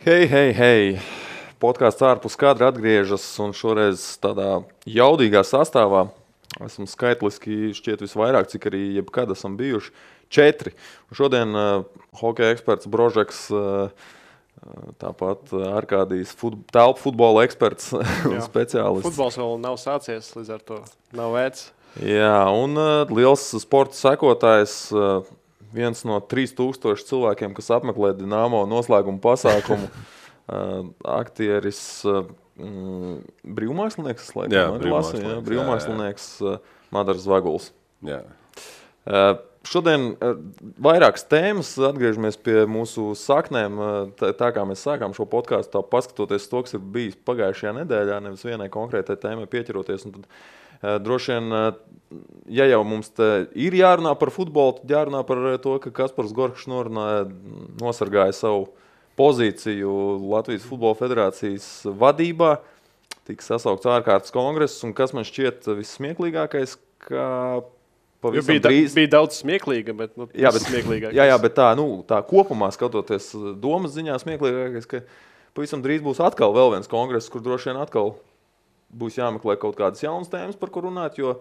Hei! Podkāsts ārpus kadra atgriežas un šoreiz tādā jaudīgā sastāvā. Esam skaitliski šķiet visvairāk, cik arī jebkad esam bijuši 4. Un šodien hokeja eksperts Brožeks, tāpat Arkādijs telpu futbola eksperts un speciālists. Futbols vēl nav sācies, līdz ar to nav vērts. Jā, un liels sporta sekotājs, viens no 3000 cilvēkiem, kas apmeklē Dinamo noslēguma pasākumu, aktieris, brīvmākslinieks, brīvmākslinieks Madars Zvaguls. Jā. Šodien vairākas tēmas, atgriežamies pie mūsu saknēm, tā kā mēs sākām šo podkāstu, paskatoties to, kas ir bijis pagājušajā nedēļā, nevis vienai konkrētai tēmai pieķeroties. Un tad, droši vien, ja jau mums ir jārunā par futbolu, tad jārunā par to, ka Kaspars Gorkšs nosargāja savu pozīciju Latvijas Futbola Federācijas vadībā. Tika sasaukts ārkārtas kongress, un kas man šķiet vissmieklīgākais, ka pavisam drīz... Bija daudz smieklīga, bet smieklīgākais. Jā, bet tā kopumā skatoties domas ziņā smieklīgākais, ka pavisam drīz būs atkal vēl viens kongress, kur droši vien atkal būs jāmeklē kaut kādas jaunas tēmas, par ko runāt, jo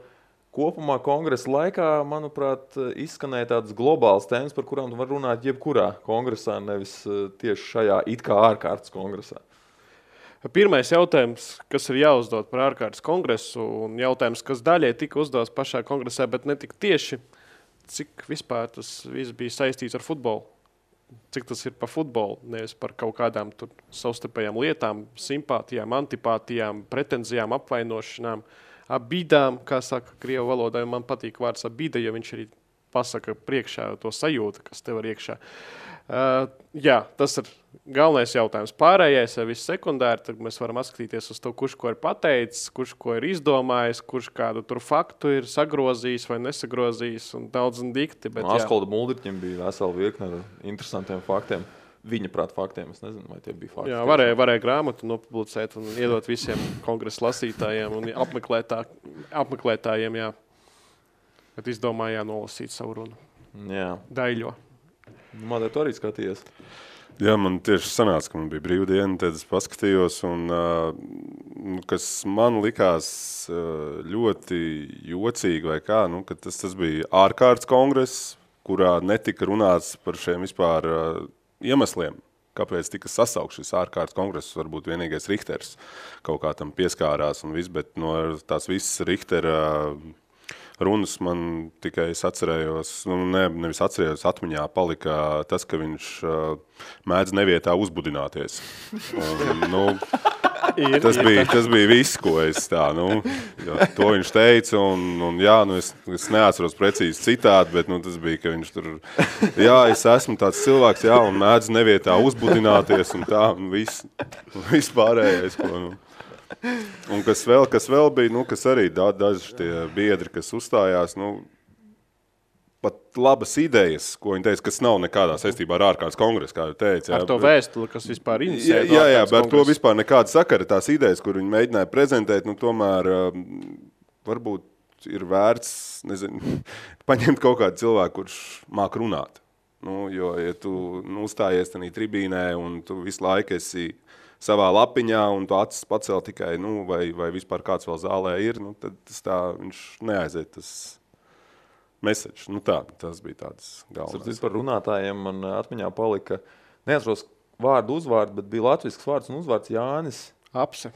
kopumā kongresa laikā, manuprāt, izskanēja tādas globālas tēmas, par kurām tu var runāt jebkurā kongresā, nevis tieši šajā it kā ārkārtas kongresā. Pirmais jautājums, kas ir jāuzdod par ārkārtas kongresu, un jautājums, kas daļai tika uzdots pašā kongresā, bet ne tik tieši, cik vispār tas viss bija saistīts ar futbolu. Cik tas ir par futbolu, nevis par kaut kādām tur savstarpējām lietām, simpātijām, antipātijām, pretenzijām, apvainošanām, abidām, kā saka krievu valodā, man patīk vārds abida, jo viņš arī pasaka priekšā to sajūtu, kas tev ir iekšā. Jā, tas ir galvenais jautājums. Pārējais ir viss sekundāri, tad mēs varam atskatīties uz to, kurš ko ir pateicis, kurš ko ir izdomājis, kurš kādu tur faktu ir sagrozījis vai nesagrozījis un daudz un dikti. Askolda Muldriķim bija vesela virkne ar interesantiem faktiem. Viņa prāt faktiem, es nezinu, vai tie bija fakti. Jā, varēja grāmatu nopublicēt un iedot visiem kongresa lasītājiem un apmeklētājiem, jā. Bet izdomāja nolasīt savu runu. Jā. Daļo. Madara, tu arī skatījies? Jā, man tieši sanāca, ka man bija brīvdiena, tad es paskatījos, un kas man likās ļoti jocīgi vai kā, ka tas bija ārkārtas kongress, kurā netika runāts par šiem vispār iemesliem, kāpēc tika sasaukt šis ārkārtas kongress, varbūt vienīgais Richters kaut kā tam pieskārās un viss, bet no tās visas Richtera runas man tikai es atcerējos, nevis atcerējos, atmiņā palika tas, ka viņš mēdz nevietā uzbudināties. Un, tas bija viss, ko es to viņš teica, un jā, es neatceros precīzi citādi, bet tas bija, ka viņš tur, jā, es esmu tāds cilvēks, jā, un mēdz nevietā uzbudināties, un tā, un viss pārējais, ko, Un kas vēl bija, kas arī daži tie biedri, kas uzstājās, pat labas idejas, ko viņi teica, kas nav nekādā saistībā ar ārkārtas kongresu, kā jau teica. Ar to vēstuli, kas vispār inicēja Jā, bet to vispār nekāda sakara, tās idejas, kur viņi mēģināja prezentēt, tomēr varbūt ir vērts, paņemt kaut kādu cilvēku, kurš māk runāt. Jo, ja tu uzstājies tanī tribīnē un tu visu laiku esi savā lapiņā, un tu acis pacēl tikai, vai vispār kāds vēl zālē ir, tad viņš neaiziet tas message. Tas bija tāds galvenais. Par runātājiem man atmiņā palika, neatceros vārdu uzvārdu, bet bija latvisks vārds un uzvārds Jānis Apse,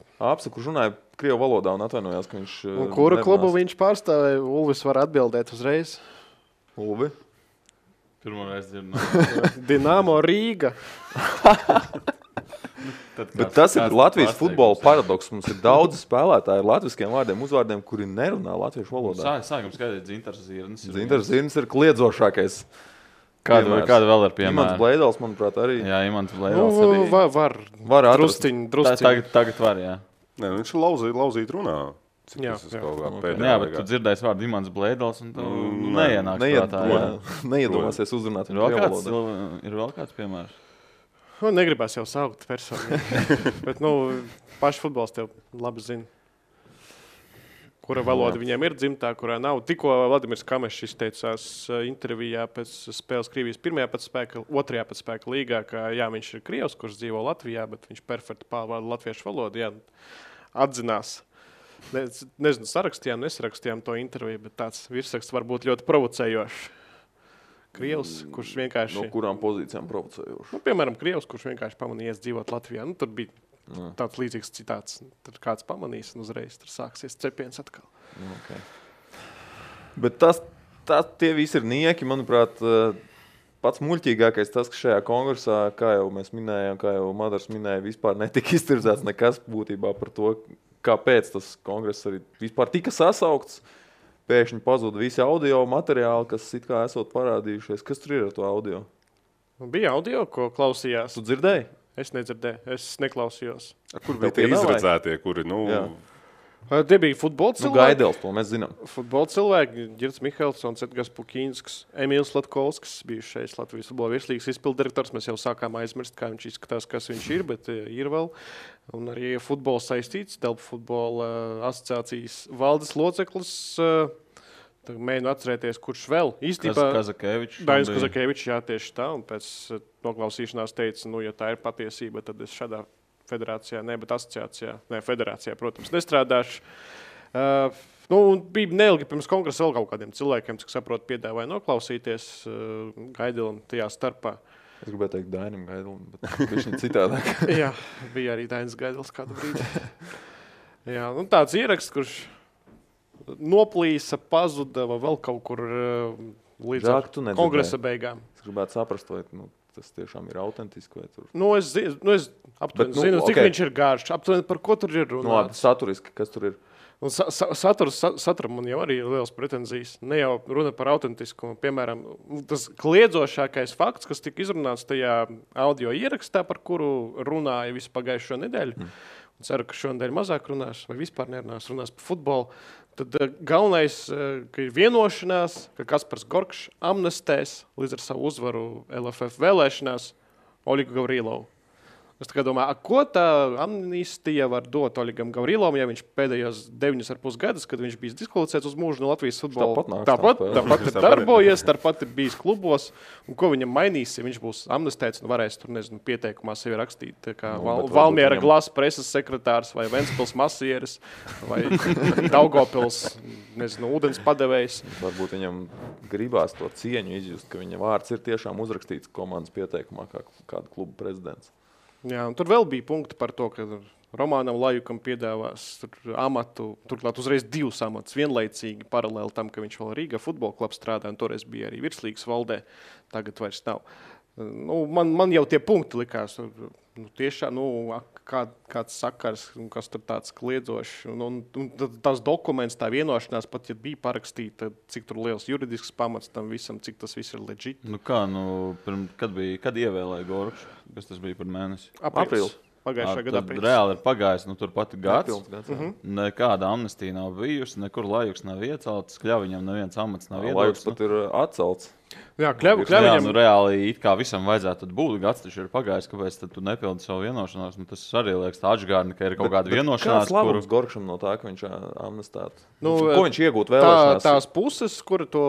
kurš runāja krievu valodā un atvainojās, ka viņš un kuru klubu viņš pārstāvēja? Ulvis var atbildēt uzreiz. Ulvi? Pirmoreiz dzirdu. Dinamo Rīga. Bet tas ir Latvijas futbola paradoks. Mums ir daudz spēlētāji ar latviskiem vārdiem, uzvārdiem, kuri nerunā latviešu valodā. Sākam skaidīt, Dzintars Zirnis. Dzintars Zirnis ir kliedzošākais. Kāda vēl ir piemēra? Imants Bleidals, manuprāt, arī. Jā, Imants Bleidals arī. Var drusciņ. Tagad var, jā. Nē, viņš ir lauzīt runā. Jā, bet tu dzirdēsi vārdu Imants Bleidals un tu neienāks prātā. Neiedomāsies uzrunāt. Ir vēl kāds piemērs? Negribās jau saukt personu, bet paši futbols tev labi zina. kura valoda viņiem ir dzimtā, kurā nav. Tikko Vladimirs Kamešs izteicās intervijā pēc spēles Krievijas otrajā pēc spēka līgā, ka jā, viņš ir krievs, kurš dzīvo Latvijā, bet viņš perfekti pārvalda latviešu valodu. Jā, atzinās. Nezinu, nesarakstījām to interviju, bet tāds virsraksts var būt ļoti provocējošs. Krievs, kurš vienkārši... No kurām pozīcijām provocējoši? Nu, piemēram, krievs, kurš vienkārši pamanījies dzīvot Latvijā. Nu, tur bija tāds līdzīgs citāts. Tur kāds pamanīs un uzreiz tur sāksies cepiens atkal. Okay. Bet tie visi ir nieki, manuprāt, pats muļķīgākais tas, ka šajā kongresā, kā jau mēs minējām, kā jau Madars minēja, vispār netika iztirzēts nekas būtībā par to, kāpēc tas kongress arī vispār tika sasaukts. Pēkšņi pazuda visi audio materiāli, kas it kā esot parādījušies. Kas tur ir ar to audio? Bija audio, ko klausījās. Tu dzirdēji? Es nedzirdēju, es neklausījos. Kur bija tie izredzētie, kuri, Tie bija futbola cilvēki. Gaidels, to mēs zinām. Futbola cilvēki, Girts Mihelsons, Edgars Pukīnskis, Emīls Latkovskis, bijušais Latvijas futbola virslīgas izpildirektors. Mēs jau sākām aizmirst, kā viņš izskatās, kas viņš ir, bet ir vēl. Un arī futbola saistīts, Delpu futbola asociācijas valdes loceklis. Mēģinu atcerēties, kurš vēl. Īstenībā Kazakevičs. Dainis Kazakevičs, jā, tieši tā. Un pēc noklausīšanās teica, ja tā ir patiesība, tad es šādā federācijā, bet asociācijā, federācijā, protams, nestrādāšu. Bija neilgi pirms kongresa vēl kaut kādiem cilvēkiem, cik saprot, piedāvāja noklausīties Gaidelam tajā starpā. Es gribēju teikt Dainim Gaidelam, bet viņš ir citādāk. Jā, bija arī Dainis Gaidels kādu brīdi. Jā, tāds ieraksts, kurš noplīsa, pazuda vai vēl kaut kur līdz kongresa beigām. Es gribētu saprast, vai tas tiešām ir autentiski. Vai tur... Es aptuveni zinu, cik viņš ir gārš. Aptuveni par ko tur ir runāts. Saturiski, kas tur ir? Un saturam man jau arī ir liels pretenzijas. Ne jau runa par autentiskumu. Piemēram, tas kliedzošākais fakts, kas tika izrunāts tajā audio ierakstā, par kuru runāja visu pagājušo nedēļu. Ceru, ka šonadēļ mazāk runās vai vispār nerunās par futbolu. Tad galvenais, ka ir vienošanās, ka Kaspars Gorkšs amnestēs līdz ar savu uzvaru LFF vēlēšanās Oļigu Gavrilovu. Es tā kā domāju, ko tā amnistija var dot Oļigam Gavrilovam, ja viņš pēdējos 9,5 gadus, kad viņš bijis diskvalificēts uz mūžu no Latvijas futbola. Tāpat ir darbojies, tāpat ir bijis klubos. Un ko viņam mainīs, ja viņš būs amnestēts un varēs tur, pieteikumā sevi rakstīt, kā Valmiera Glasa preses sekretārs vai Ventspils masieris vai Daugavpils, ūdens padevējs. Varbūt viņam gribās to cieņu izjust, ka viņa vārds ir tiešām uzrakstīts komandas pieteikumā kā kāda kluba prezidents. Jā, un tur vēl bija punkti par to, ka Romānam Lajukam piedāvās amatu, turklāt uzreiz 2 amatus vienlaicīgi paralēli tam, ka viņš vēl Rīga futbola klubā strādā, un toreiz bija arī virslīgas valdē, tagad vairs nav. Man jau tie punkti likās, tiešām, kāds sakars, kas tur tāds kliedzošs, un tās dokuments, tā vienošanās, pat ja bija parakstīta, cik tur liels juridisks pamats tam visam, cik tas viss ir legit. Kad ievēlēja Gorkšu? Kas tas bija par mēnesi? Aprīlis. Pagājušā gada aprīlis. Reāli ir pagājis, tur pat gads. Nekāda amnestija nav bijusi, nekur Lajuks nav iecelts, Kļaviņam neviens amats nav iedots. Lajuks pat ir atcelts. Jā, Kļaviņam... reāli it kā visam vajadzētu būt, gads taču ir pagājis, kāpēc tad tu nepildi savu vienošanos. Tas arī liekas tā atžgārni, ka ir kaut kāda vienošanās. Kāds labums Gorkšam no tā, ka viņš amnestētu? Ko viņš iegūt vēlēšanās? Tās puses, kura to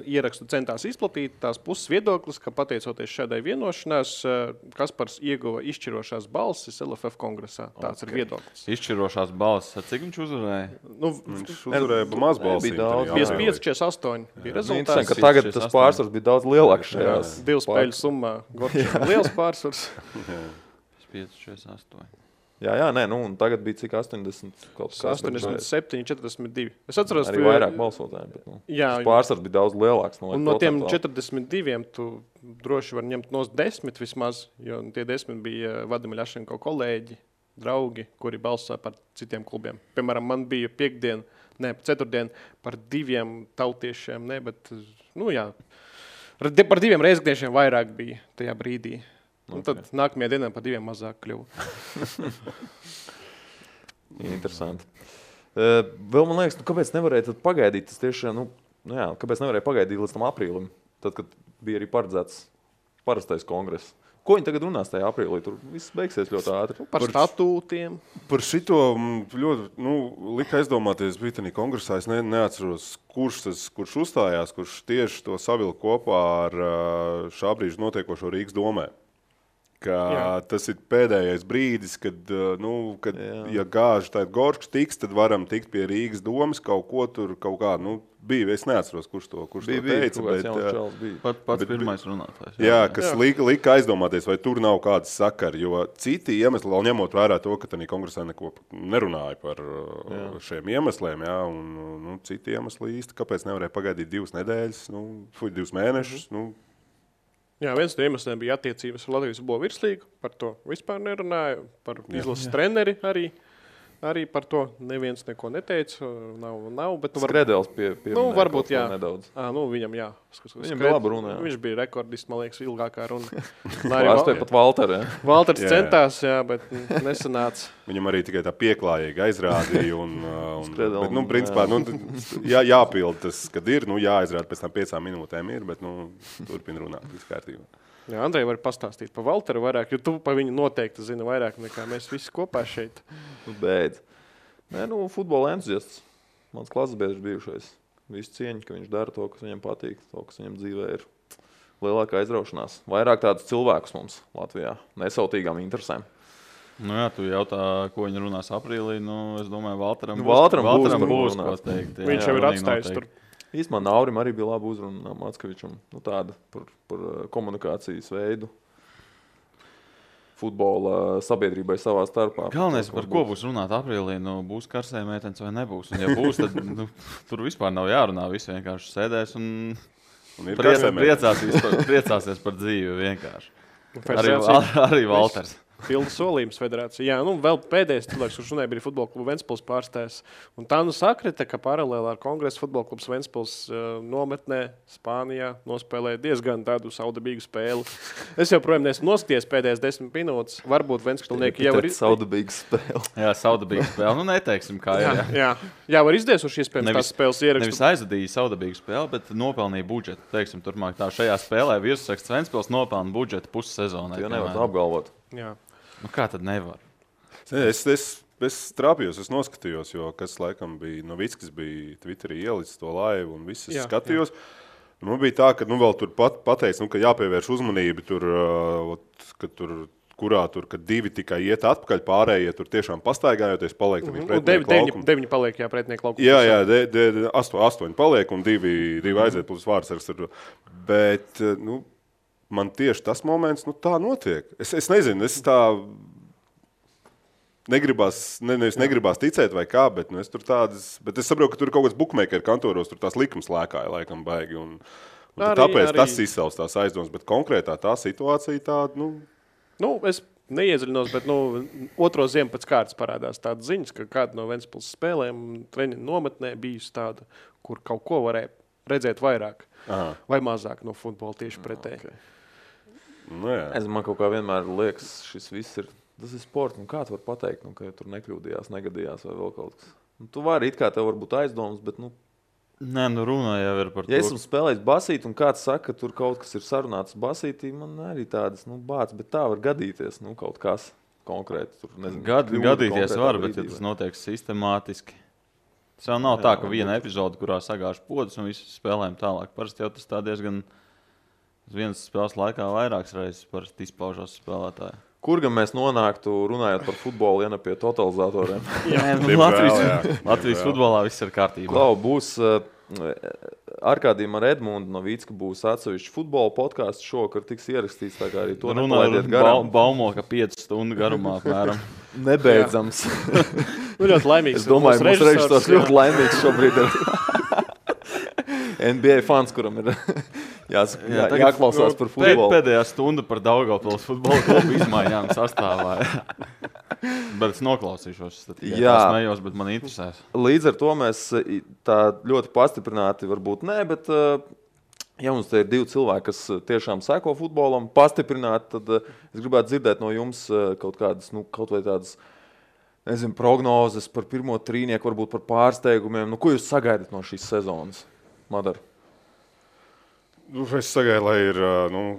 ierakstu centās izplatīt, tās puses viedoklis, ka pateicoties šādai vienošanās, Kaspars ieguva izšķirošās balsis LFF kongresā. Tāds ir viedoklis. Izšķirošās balsis. Cik viņš uzvarēja? Viņš uzvarēja maz balsīm. 55-48 bija rezultāts. Ka tagad tas pārsvars bija daudz lielāks šajās. 2 spēļu summā. Gorkšam liels pārsvars. 5-48. Jā, un tagad bija cik 80 kaut kas. 87, 42. Es atceros, arī vairāk balsotāji, bet pārsvars bija daudz lielāks. Un no tiem 42 tu droši var ņemt nos 10 vismaz, jo tie 10 bija Vadima Ļašenko kolēģi, draugi, kuri balsoja par citiem klubiem. Piemēram, man bija ceturtdien par 2 tautiešiem, bet, par 2 reizekniešiem vairāk bija tajā brīdī. Un tad nākamajā dienā par 2 mazāk kļuva. Interesanti. Vēl man liekas, kāpēc nevarēja tad pagaidīt? Tas tieši, kāpēc nevarēja pagaidīt līdz tam aprīlim, tad, kad bija arī paredzēts parastais kongress. Ko viņi tagad runās tajā aprīlī? Tur viss beigsies ļoti ātri. Par statūtiem. Par šito ļoti lika aizdomāties Britānija kongresā. Es neatceros, kurš uzstājās, kurš tieši to savilka kopā ar šā brīža notiekošo Rīgas domē. Tas ir pēdējais brīdis, kad ja gāži tāda Goršs tiks, tad varam tikt pie Rīgas domas kaut ko tur, kaut kā, bija, es neatceros, kurš to teica. Pats pirmais runātājs. Jā, kas lika aizdomāties, vai tur nav kādas sakari, jo citi iemesli, vēl ņemot vērā to, ka tādā kongresā neko nerunāja par šiem iemesliem, un citi iemesli īsti, kāpēc nevarēja pagaidīt 2 nedēļas, 2 mēnešus, Jā, viens no iemesliem bija attiecības ar Latvijas futbola virslīgu, par to vispār nerunāju, par izlases treneri arī par to neviens neko neteica, nav, bet Skredels varbūt jā. Nedaudz. Viņam jā. Viņam bija laba runa, jā. Viņš bija rekordists, man liekas, ilgākā runa. Pārstāja pat Valteru, jā. Valters centās, jā, bet nesanāca. Viņam arī tikai tā pieklājīgi aizrādīja bet, principā, jāpild tas, kad ir, jāizrāda pēc tam 5 minūtēm ir, bet, turpina runāt, viss kārtībā. Jā, Andrej var pastāstīt par Valteru vairāk, jo tu par viņu noteikti zini vairāk nekā mēs visi kopā šeit. Beidz. Futbola entuziasts. Mans klases biedrs bijušais. Visu cieņu, ka viņš dara to, kas viņam patīk, to, kas viņam dzīvē ir lielākā aizraušanās. Vairāk tādus cilvēkus mums Latvijā, nesautīgām interesēm. Jā, tu jautā, ko viņi runās aprīlī, es domāju, Valteram būs ko teikt. Viņš jau ir atstājis tur. Īstumā Naurim arī bija laba uzruna Mackevičam, tāda par komunikācijas veidu futbola sabiedrībai savā starpā. Galvenais, par ko būs runāt aprīlī, būs karsē meitenes vai nebūs. Un ja būs, tad tur vispār nav jārunā, visi vienkārši sēdēs un priecāsies par dzīvi vienkārši. Arī Valters. Pildu solījums federācija. Jā, vēl pēdējais cilvēks, kurš runāja, bija futbola kluba Ventspils pārstājs. Un tā sakrita, ka paralēli ar Kongresu futbola klubs Ventspils nometnē Spānijā nospēlēja diezgan tādu saudabīgu spēli. Es joprojām neesmu noskaties pēdējās 10 minūtes. Varbūt Ventspilnieki jau ir saudabīga spēle. Jā, saudabīga spēle. Neteiksim, kā ir. Jā, var izdiesuši iespējams tās spēles ierakstu. Nevis aizadīja saudabīgu spēli, bet nopelnīja budžetu. Teiksim, turpmāk tā šajā spēlē virsraksts Ventspils nopelna budžetu pussezonai. Jo nevar apgalvot. Jā. Kā tad nevar? Es trāpījos, es noskatījos, jo kas laikam bija, Novickis bija Twitterī ielicis to laivu un viss es skatījos. Man bija tā, ka vēl tur pateica, ka jāpievērš uzmanību tur, kad 2 tikai iet atpakaļ, pārējie tur tiešām pastaigājoties, paliek pretinieku laukumu. 9 paliek, pretinieku laukumu. Jā, 8 paliek un 2 aiziet plus vārdsargs. Bet, man tieši tas moments, tā notiek. Es nezinu, es tā negribās ticēt vai kā, bet es tur bet es saprotu, ka tur kaut kāds bookmaker kantoros, tur tās likums lēkāja laikam baigi, un tāpēc tas izsauc tās aizdomas, bet konkrētā tā situācija tāda, es neiedziļinos, bet, otro ziemu pēc kārtas parādās tādas ziņas, ka kāda no Ventspils spēlēm treniņu nometnē bijusi tāda, kur kaut ko varēja redzēt vairāk vai mazāk no futbola tieši pretēji. Okay. Man kaut kā vienmēr liekas, tas ir sports, kā tu vari pateikt, ka tur nekļūdījās, negadījās vai vēl kaut kas. Tu vari it kā tev var būt aizdomas, bet Nē, runā jau ir par to. Ja esmu spēlējis basīti un kāds saka, ka tur kaut kas ir sarunāts basītī, man arī tādas, bāc, bet tā var gadīties, kaut kas konkrēti. Tur, nezinu, gadīties var, bet ja tas notiek sistemātiski. Tas jau nav tā, ka viena epizode, kurā sagāž podus un visi spēlējam tālāk. Parasti jau tas tā diezgan vienas spēles laikā vairākas reizes parasti izpaužās spēlētāji. Kur gan mēs nonāktu, runājot par futbolu, ja ne pie totalizatoriem? Latvijas futbolā viss ir kārtībā. Klau, būs Arkādijam ar Edmundu Novicku būs atsevišķi futbola podcasts šovakar tiks ierakstīts, tā kā arī to nepalaidiet garām. Baumo, ka 5 stundu garumā apmēram. Nebeidzams. Ļoti laimīgs. Es domāju, mūsu režisors ļoti laimīgs šobrīd ir. NBA fans, kuram ir jāklausās par futbolu. Pēdējā stunda par Daugavpils futbola klubu izmaiņām sastāvā. Bet es noklausīšos. Es nejos, bet man interesēs. Līdz ar to mēs tā ļoti pastiprināti varbūt ne, bet ja mums te ir 2 cilvēki, kas tiešām seko futbolam, pastiprināti, tad es gribētu dzirdēt no jums kaut kādas, kaut vai tādas, prognozes par pirmo trīnieku, varbūt par pārsteigumiem. Ko jūs sagaidat no šīs sezonas? Madar. Es sagaidu, lai ir,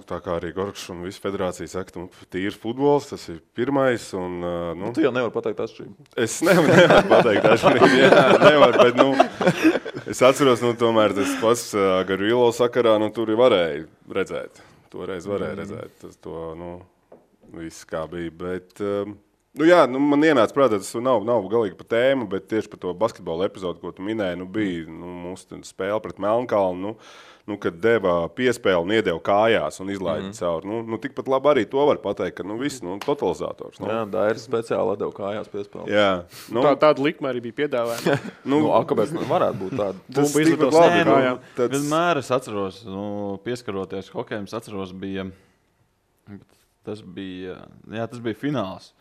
tā kā arī Gorkšs un visa federācija saka, tīrs futbols, tas ir pirmais. Un, Tu jau nevari pateikt atšķirību. Es nevaru pateikt atšķirību, jā, nevaru, bet, es atceros, tomēr tas pats Garvilo sakarā, tur varēja redzēt. Toreiz varēja redzēt, tas viss kā bija, bet... man ienāca prātā, tas nav galīgi par tēmu, bet tieši par to basketbola epizodu, ko tu minēji, bija mūsu spēle pret Melnkalnu, kad deva piespēli un iedeva kājās un izlaida cauri. Tikpat labi arī to var pateikt, ka viss, totalizators. Jā, Dairis speciāli deva kājās piespēli. Jā. Tāda likme arī bija piedāvāta. Kāpēc varētu būt tāda? Tas tikpat labi. Vienmēr es atceros, pieskaroties hokejam, es atceros, tas bija fināls.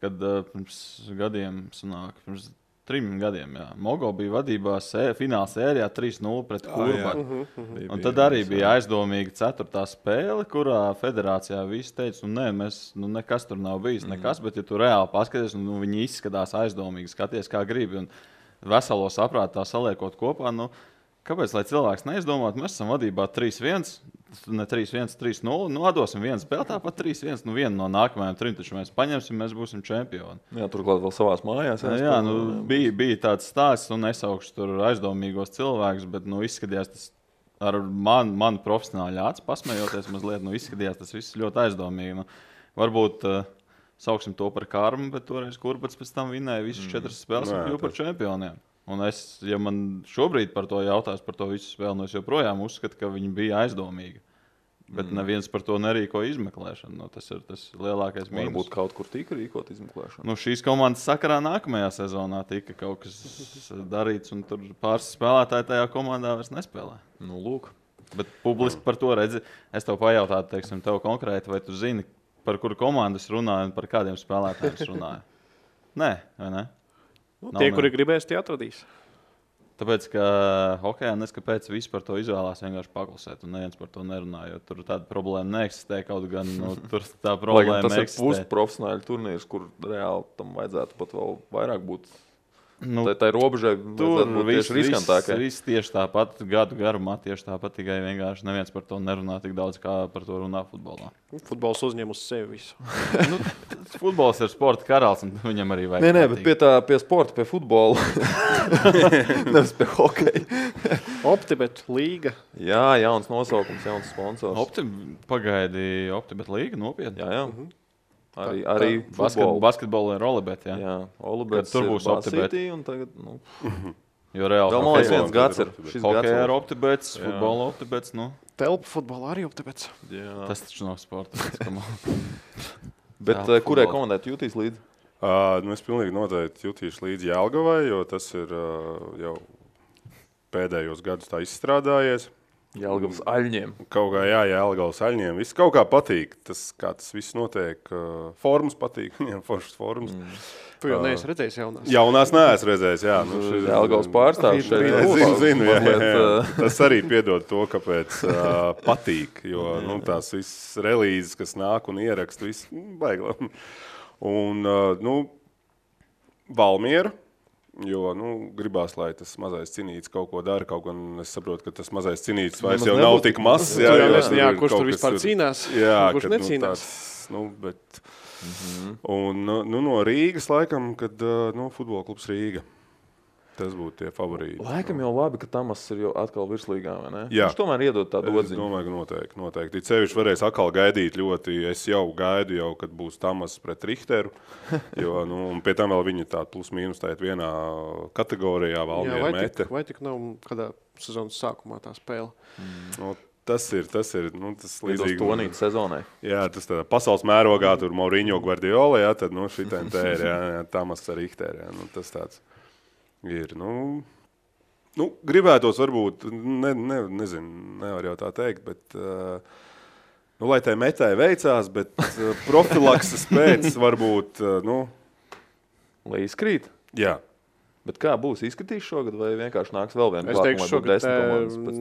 Kad pirms gadiem, pirms 3 gadiem, Mogo bija vadībā fināla sērijā 3-0 pret Kurbaku. Un tad arī bija aizdomīga 4. spēle, kurā federācijā visi teica, nekas tur nav bijis, nekas, bet ja tu reāli paskaties, viņi izskatās aizdomīgi, skaties kā gribi un veselo saprātu tā saliekot kopā, kāpēc, lai cilvēks neizdomātu, mēs esam vadībā 3-1, ne 3-1, 3-0, atdosim vienu spēli, tāpat 3-1, vienu no nākamajām 3, taču mēs paņemsim, mēs būsim čempioni. Jā, turklāt vēl savās mājās. Bija tāds stāsts, un nesaukšu tur aizdomīgos cilvēkus, bet, izskatījās tas ar manu profesionāļu acu pasmējoties mazliet, izskatījās tas viss ļoti aizdomīgi. Varbūt sauksim to par karmu, bet toreiz Kurbats pēc tam vinēja visas 4 spēles un kļuva par čempioniem. Un ja man šobrīd par to jautās, par to visu spēli, es joprojām uzskatu, ka viņi bija aizdomīgi. Bet neviens par to nerīko izmeklēšanu. Tas ir tas lielākais mīnus. Varbūt kaut kur tika rīkot izmeklēšanu. Šīs komandas sakarā nākamajā sezonā tika kaut kas darīts, un tur pāris spēlētāji tajā komandā vairs nespēlē. Lūk. Bet publiski par to redzi. Es tev pajautātu, tev konkrēti, vai tu zini, par kuru komandu es runāju un par kādiem spēlētājiem es runāju? Nē, vai ne? Tie, kuri gribēs, tie atradīs. Tāpēc, ka hokejā neskapēc visi par to izvēlās vienkārši paklusēt, un neviens par to nerunā, jo tur tāda problēma neeksistē, kaut gan tur tā problēma tas eksistē. Tas ir pusprofesionāļu turnīrs, kur reāli tam vajadzētu pat vēl vairāk būt. Tā robežai tur viss riskantākai. Viss tieši tāpat gadu garumā, tieši tāpat, tikai vienkārši neviens par to nerunā tik daudz, kā par to runā futbolā. Futbols uzņem uz sevi visu. Futbols ir sporta karalis, un viņam arī vajag. Nē, bet pie sporta, pie futbola. Nevis pie hokeja. Optibet līga. Jā, jauns nosaukums, jauns sponsors. Optibet līga, nopietni. Jā. Arī basketbolu ir Olibet, jā. Jā, Olibet tur būs Optibet. Un tagad, Jo reāli vēl man viens gads ir. Hokejā ir Optibets, futbola Optibets, Telpa futbolā arī Optibets. Tas taču nav sporta. Bet kurai komandai tu jūtīs līdzi? Es pilnīgi noteikti jutīšu līdzi Jelgavai, jo tas ir jau pēdējos gadus tā izstrādājies. Jelgavas aļņiem. Kaut kā, Jelgavas aļņiem. Viss kaut kā patīk. Tas, kā tas viss notiek. Formas patīk. Viņam foršas formas. Tu jau neesi redzējis jaunās? Jaunās neesmu redzējis, jā. Jelgavas pārstāvs šeit. Zinu. Tas arī piedod to, kāpēc patīk. Jo tās viss relīzes, kas nāk un ierakst, viss baigla. Un, Valmiera. Jo gribās, lai tas mazais cinītis kaut ko dara, kaut gan es saprotu, ka tas mazais cinītis vairs jau nav tik mazs. Jā, kurš tur vispār cīnās, kurš necīnās. Un no Rīgas laikam, kad futbola klubs Rīga. Tas būtu tie favorīti. Laikam jau labi, ka Tamas ir jau atkal virslīgā, vai ne? Jā. Viņš tomēr iedod tādu atziņu. Es domāju, ka noteikti. Cevišķi varēs atkal gaidīt ļoti. Es jau gaidu, kad būs Tamas pret Richteru. Un pie tam vēl viņi tādu plus-mínus tājat vienā kategorijā Valmiera mete. Vai tik nav kādā sezonas sākumā tā spēle? Tas ir līdzīgi Tonīt sezonai. Jā, tas tādā pasaules mērogā tur Mourinho Guardiola, tad šitien te ir, Tamas ar Richteru. Tas tāds. Ir, gribētos varbūt, nezinu, nevar jau tā teikt, bet, lai tai metai veicās, bet profilakses pēc varbūt, Lai izkrīt? Jā. Bet kā būs? Izskatīs šogad vai vienkārši nāks vēl viena Es teikšu, šogad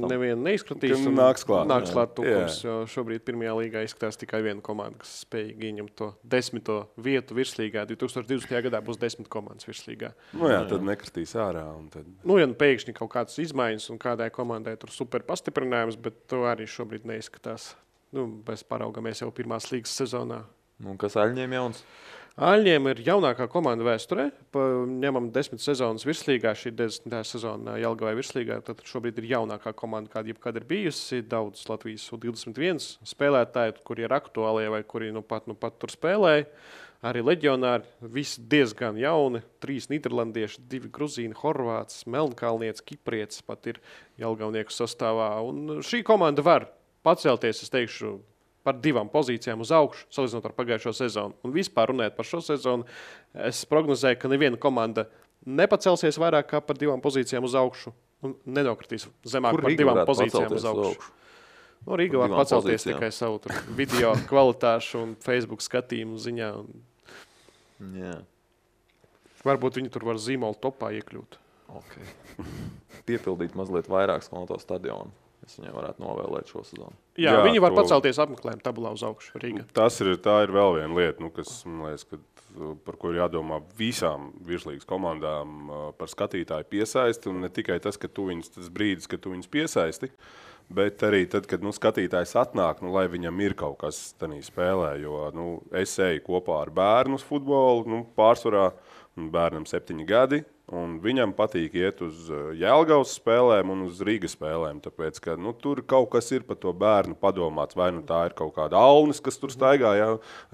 nevienu neizskatīs. Nāks klāt. Nāks klāt tukums, jo šobrīd pirmajā līgā izskatās tikai viena komanda, kas spējīgi ieņemt to 10. vietu virslīgā. 2020. gadā būs 10 komandas virslīgā. Tad nekritīs ārā. Tad... Ja pēkšņi kaut kādas izmaiņas un kādai komandai tur super pastiprinājums, bet to arī šobrīd neizskatās. Mēs paraugamies jau pirmās līgas sezonā. Kas Aļņiem jauns? Aļņiem ir jaunākā komanda vēsturē. Ņemam 10 sezonas virslīgā, šī 10. sezona Jelgavai virslīgā. Tad šobrīd ir jaunākā komanda, kāda jebkad ir bijusi. Daudz Latvijas U21 spēlētāji, kuri ir aktuālie vai kuri nu pat tur spēlēja. Arī leģionāri, visi diezgan jauni. 3 nīderlandieši, 2 gruzīni, horvāts, melnkalnietis, kiprietis pat ir jelgavnieku sastāvā. Un šī komanda var pacelties, es teikšu, par 2 pozīcijām uz augšu, salīdzinot ar pagājušo sezonu. Un vispār runājot par šo sezonu, es prognozēju, ka neviena komanda nepacelsies vairāk kā par 2 pozīcijām uz augšu un nenokritīs zemāk par 2 pozīcijām uz augšu. Rīga var pacelties tikai savu video kvalitāšu un Facebook skatījumu ziņā. Varbūt viņi tur var zīmolu topā iekļūt. Piepildīt mazliet vairāk skoloto stadionu. Es viņai varētu novēlēt šo sezonu. Jā, viņi var pacelties apmeklējumu tabulā uz augšu Rīgā. Tā ir vēl viena lieta, kas, man liekas, par ko ir jādomā visām virslīgas komandām par skatītāju piesaisti. Un ne tikai tas, ka tas brīdis, kad tu viņus piesaisti, bet arī tad, kad skatītājs atnāk, lai viņam ir kaut kas tanī spēlē. Jo es eju kopā ar bērnu uz futbolu, pārsvarā bērnam 7 gadi. Un viņam patīk iet uz Jelgavas spēlēm un uz Rīgas spēlēm, tāpēc, ka tur kaut kas ir par to bērnu padomāts. Vai tā ir kaut kāda Alnis, kas tur staigā,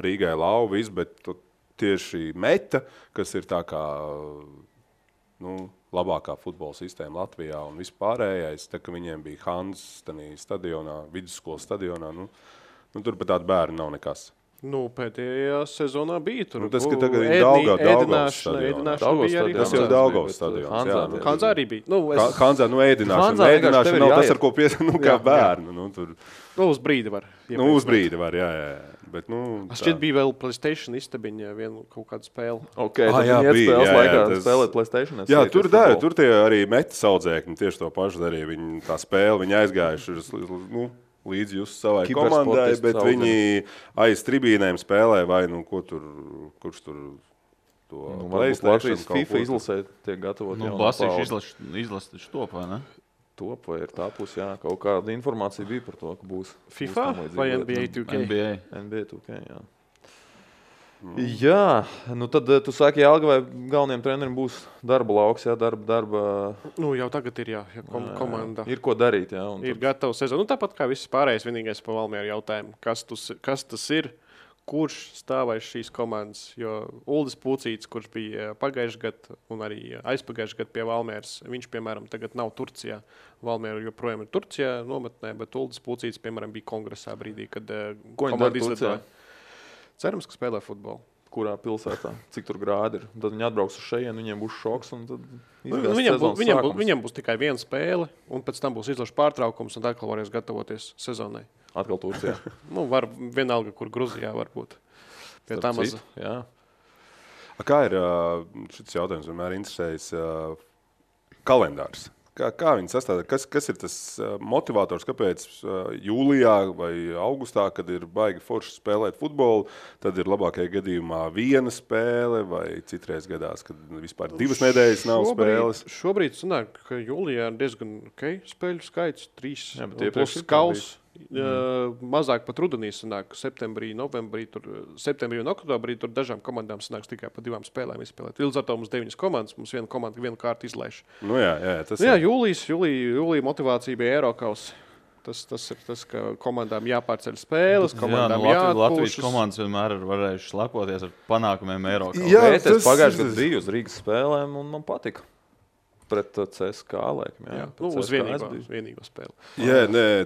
Rīgai lauvis, bet tieši Meta, kas ir tā kā labākā futbola sistēma Latvijā un vispārējais, tā ka viņiem bija Hans stadionā, vidusskolas stadionā, tur pat tādu bērnu nav nekas. Pēdējā sezonā bija tur. Tas, ka tagad ir Daugavas stadionā. Tas jau Daugavas stadions. Hanzā arī bija. Hanzā, ēdināšana. Ēdināšana nav tas, ar ko kā bērnu. Uz brīdi var. Uz brīdi var, jā. Bet, šķiet bija vēl PlayStation istabiņa vienu kaut kādu spēli. Tad viņi iet spēles laikā spēlēt PlayStation. Jā, tur tie arī Meta saudzēkņi tieši to pašu darīja. Viņi tā spēle, viņi aizgājuši līdz jūs savai komandai, bet viņi aiz tribīnēm spēlē vai kurš tur to Latvijas FIFA izlasē tiek gatavot. Basīši izlasa taču top, vai ne? Top vai ir tā puse, jā. Kaut kāda informācija bija par to, ka būs. FIFA vai NBA 2K? NBA 2K, jā. Jā, tad tu saki, Jelgavai galvenajiem treneriem būs darba lauks, jā, darba. Jau tagad ir, komanda. Ir ko darīt, jā. Ir gatava sezona. Tāpat kā viss pārējais, vienīgais pa Valmieru jautājumu, kas tas ir, kurš stāvēs šīs komandas, jo Uldis Pucīts, kurš bija pagājušajā gadā un arī aizpagājušajā gadā pie Valmieras, viņš, piemēram, tagad nav Turcijā. Valmiera joprojām ir Turcijā nometnē, bet Uldis Pucīts, piemēram, bija kongresā brīdī, kad komanda izlidoja. Cerams, ka spēlē futbolu. Kurā pilsētā, cik tur grādi ir. Tad viņi atbrauks uz šejienu, viņiem būs šoks. Un tad viņiem būs tikai viena spēle, un pēc tam būs izlaša pārtraukums, un atkal varēs gatavoties sezonai. Atkal Turcijā. Var vienalga, kur Gruzijā varbūt. Pie tā maza. Jā. Kā ir šis jautājums vienmēr interesējis kalendārs? Kā viņi sastāv? Kas ir tas motivators, kāpēc jūlijā vai augustā, kad ir baigi forši spēlēt futbolu, tad ir labākajā gadījumā viena spēle vai citreiz gadās, kad vispār 2 nedēļas nav spēles? Šobrīd sanāk, ka jūlijā ir diezgan spēļu skaits, 3 plus kaus. Mazāk pat rudenī sanāk, septembrī, novembrī, septembrī un oktobrī tur dažām komandām sanāks tikai pa 2 spēlēm izspēlēt. Līdz ar to mums 9 komandas, mums viena komanda vienu kārtu izlaiž. Jūlija motivācija bija Eirokaus. Tas ir tas, ka komandām jāpārceļ spēles, komandām jāatpūšas. Latvijas komandas vienmēr ir varējušas lepoties ar panākumiem Eirokaus. Es pagājušajā gadā biju uz Rīgas spēlēm un man patika. Pret CSK, laikam, jā. Uz vienīgo spēli.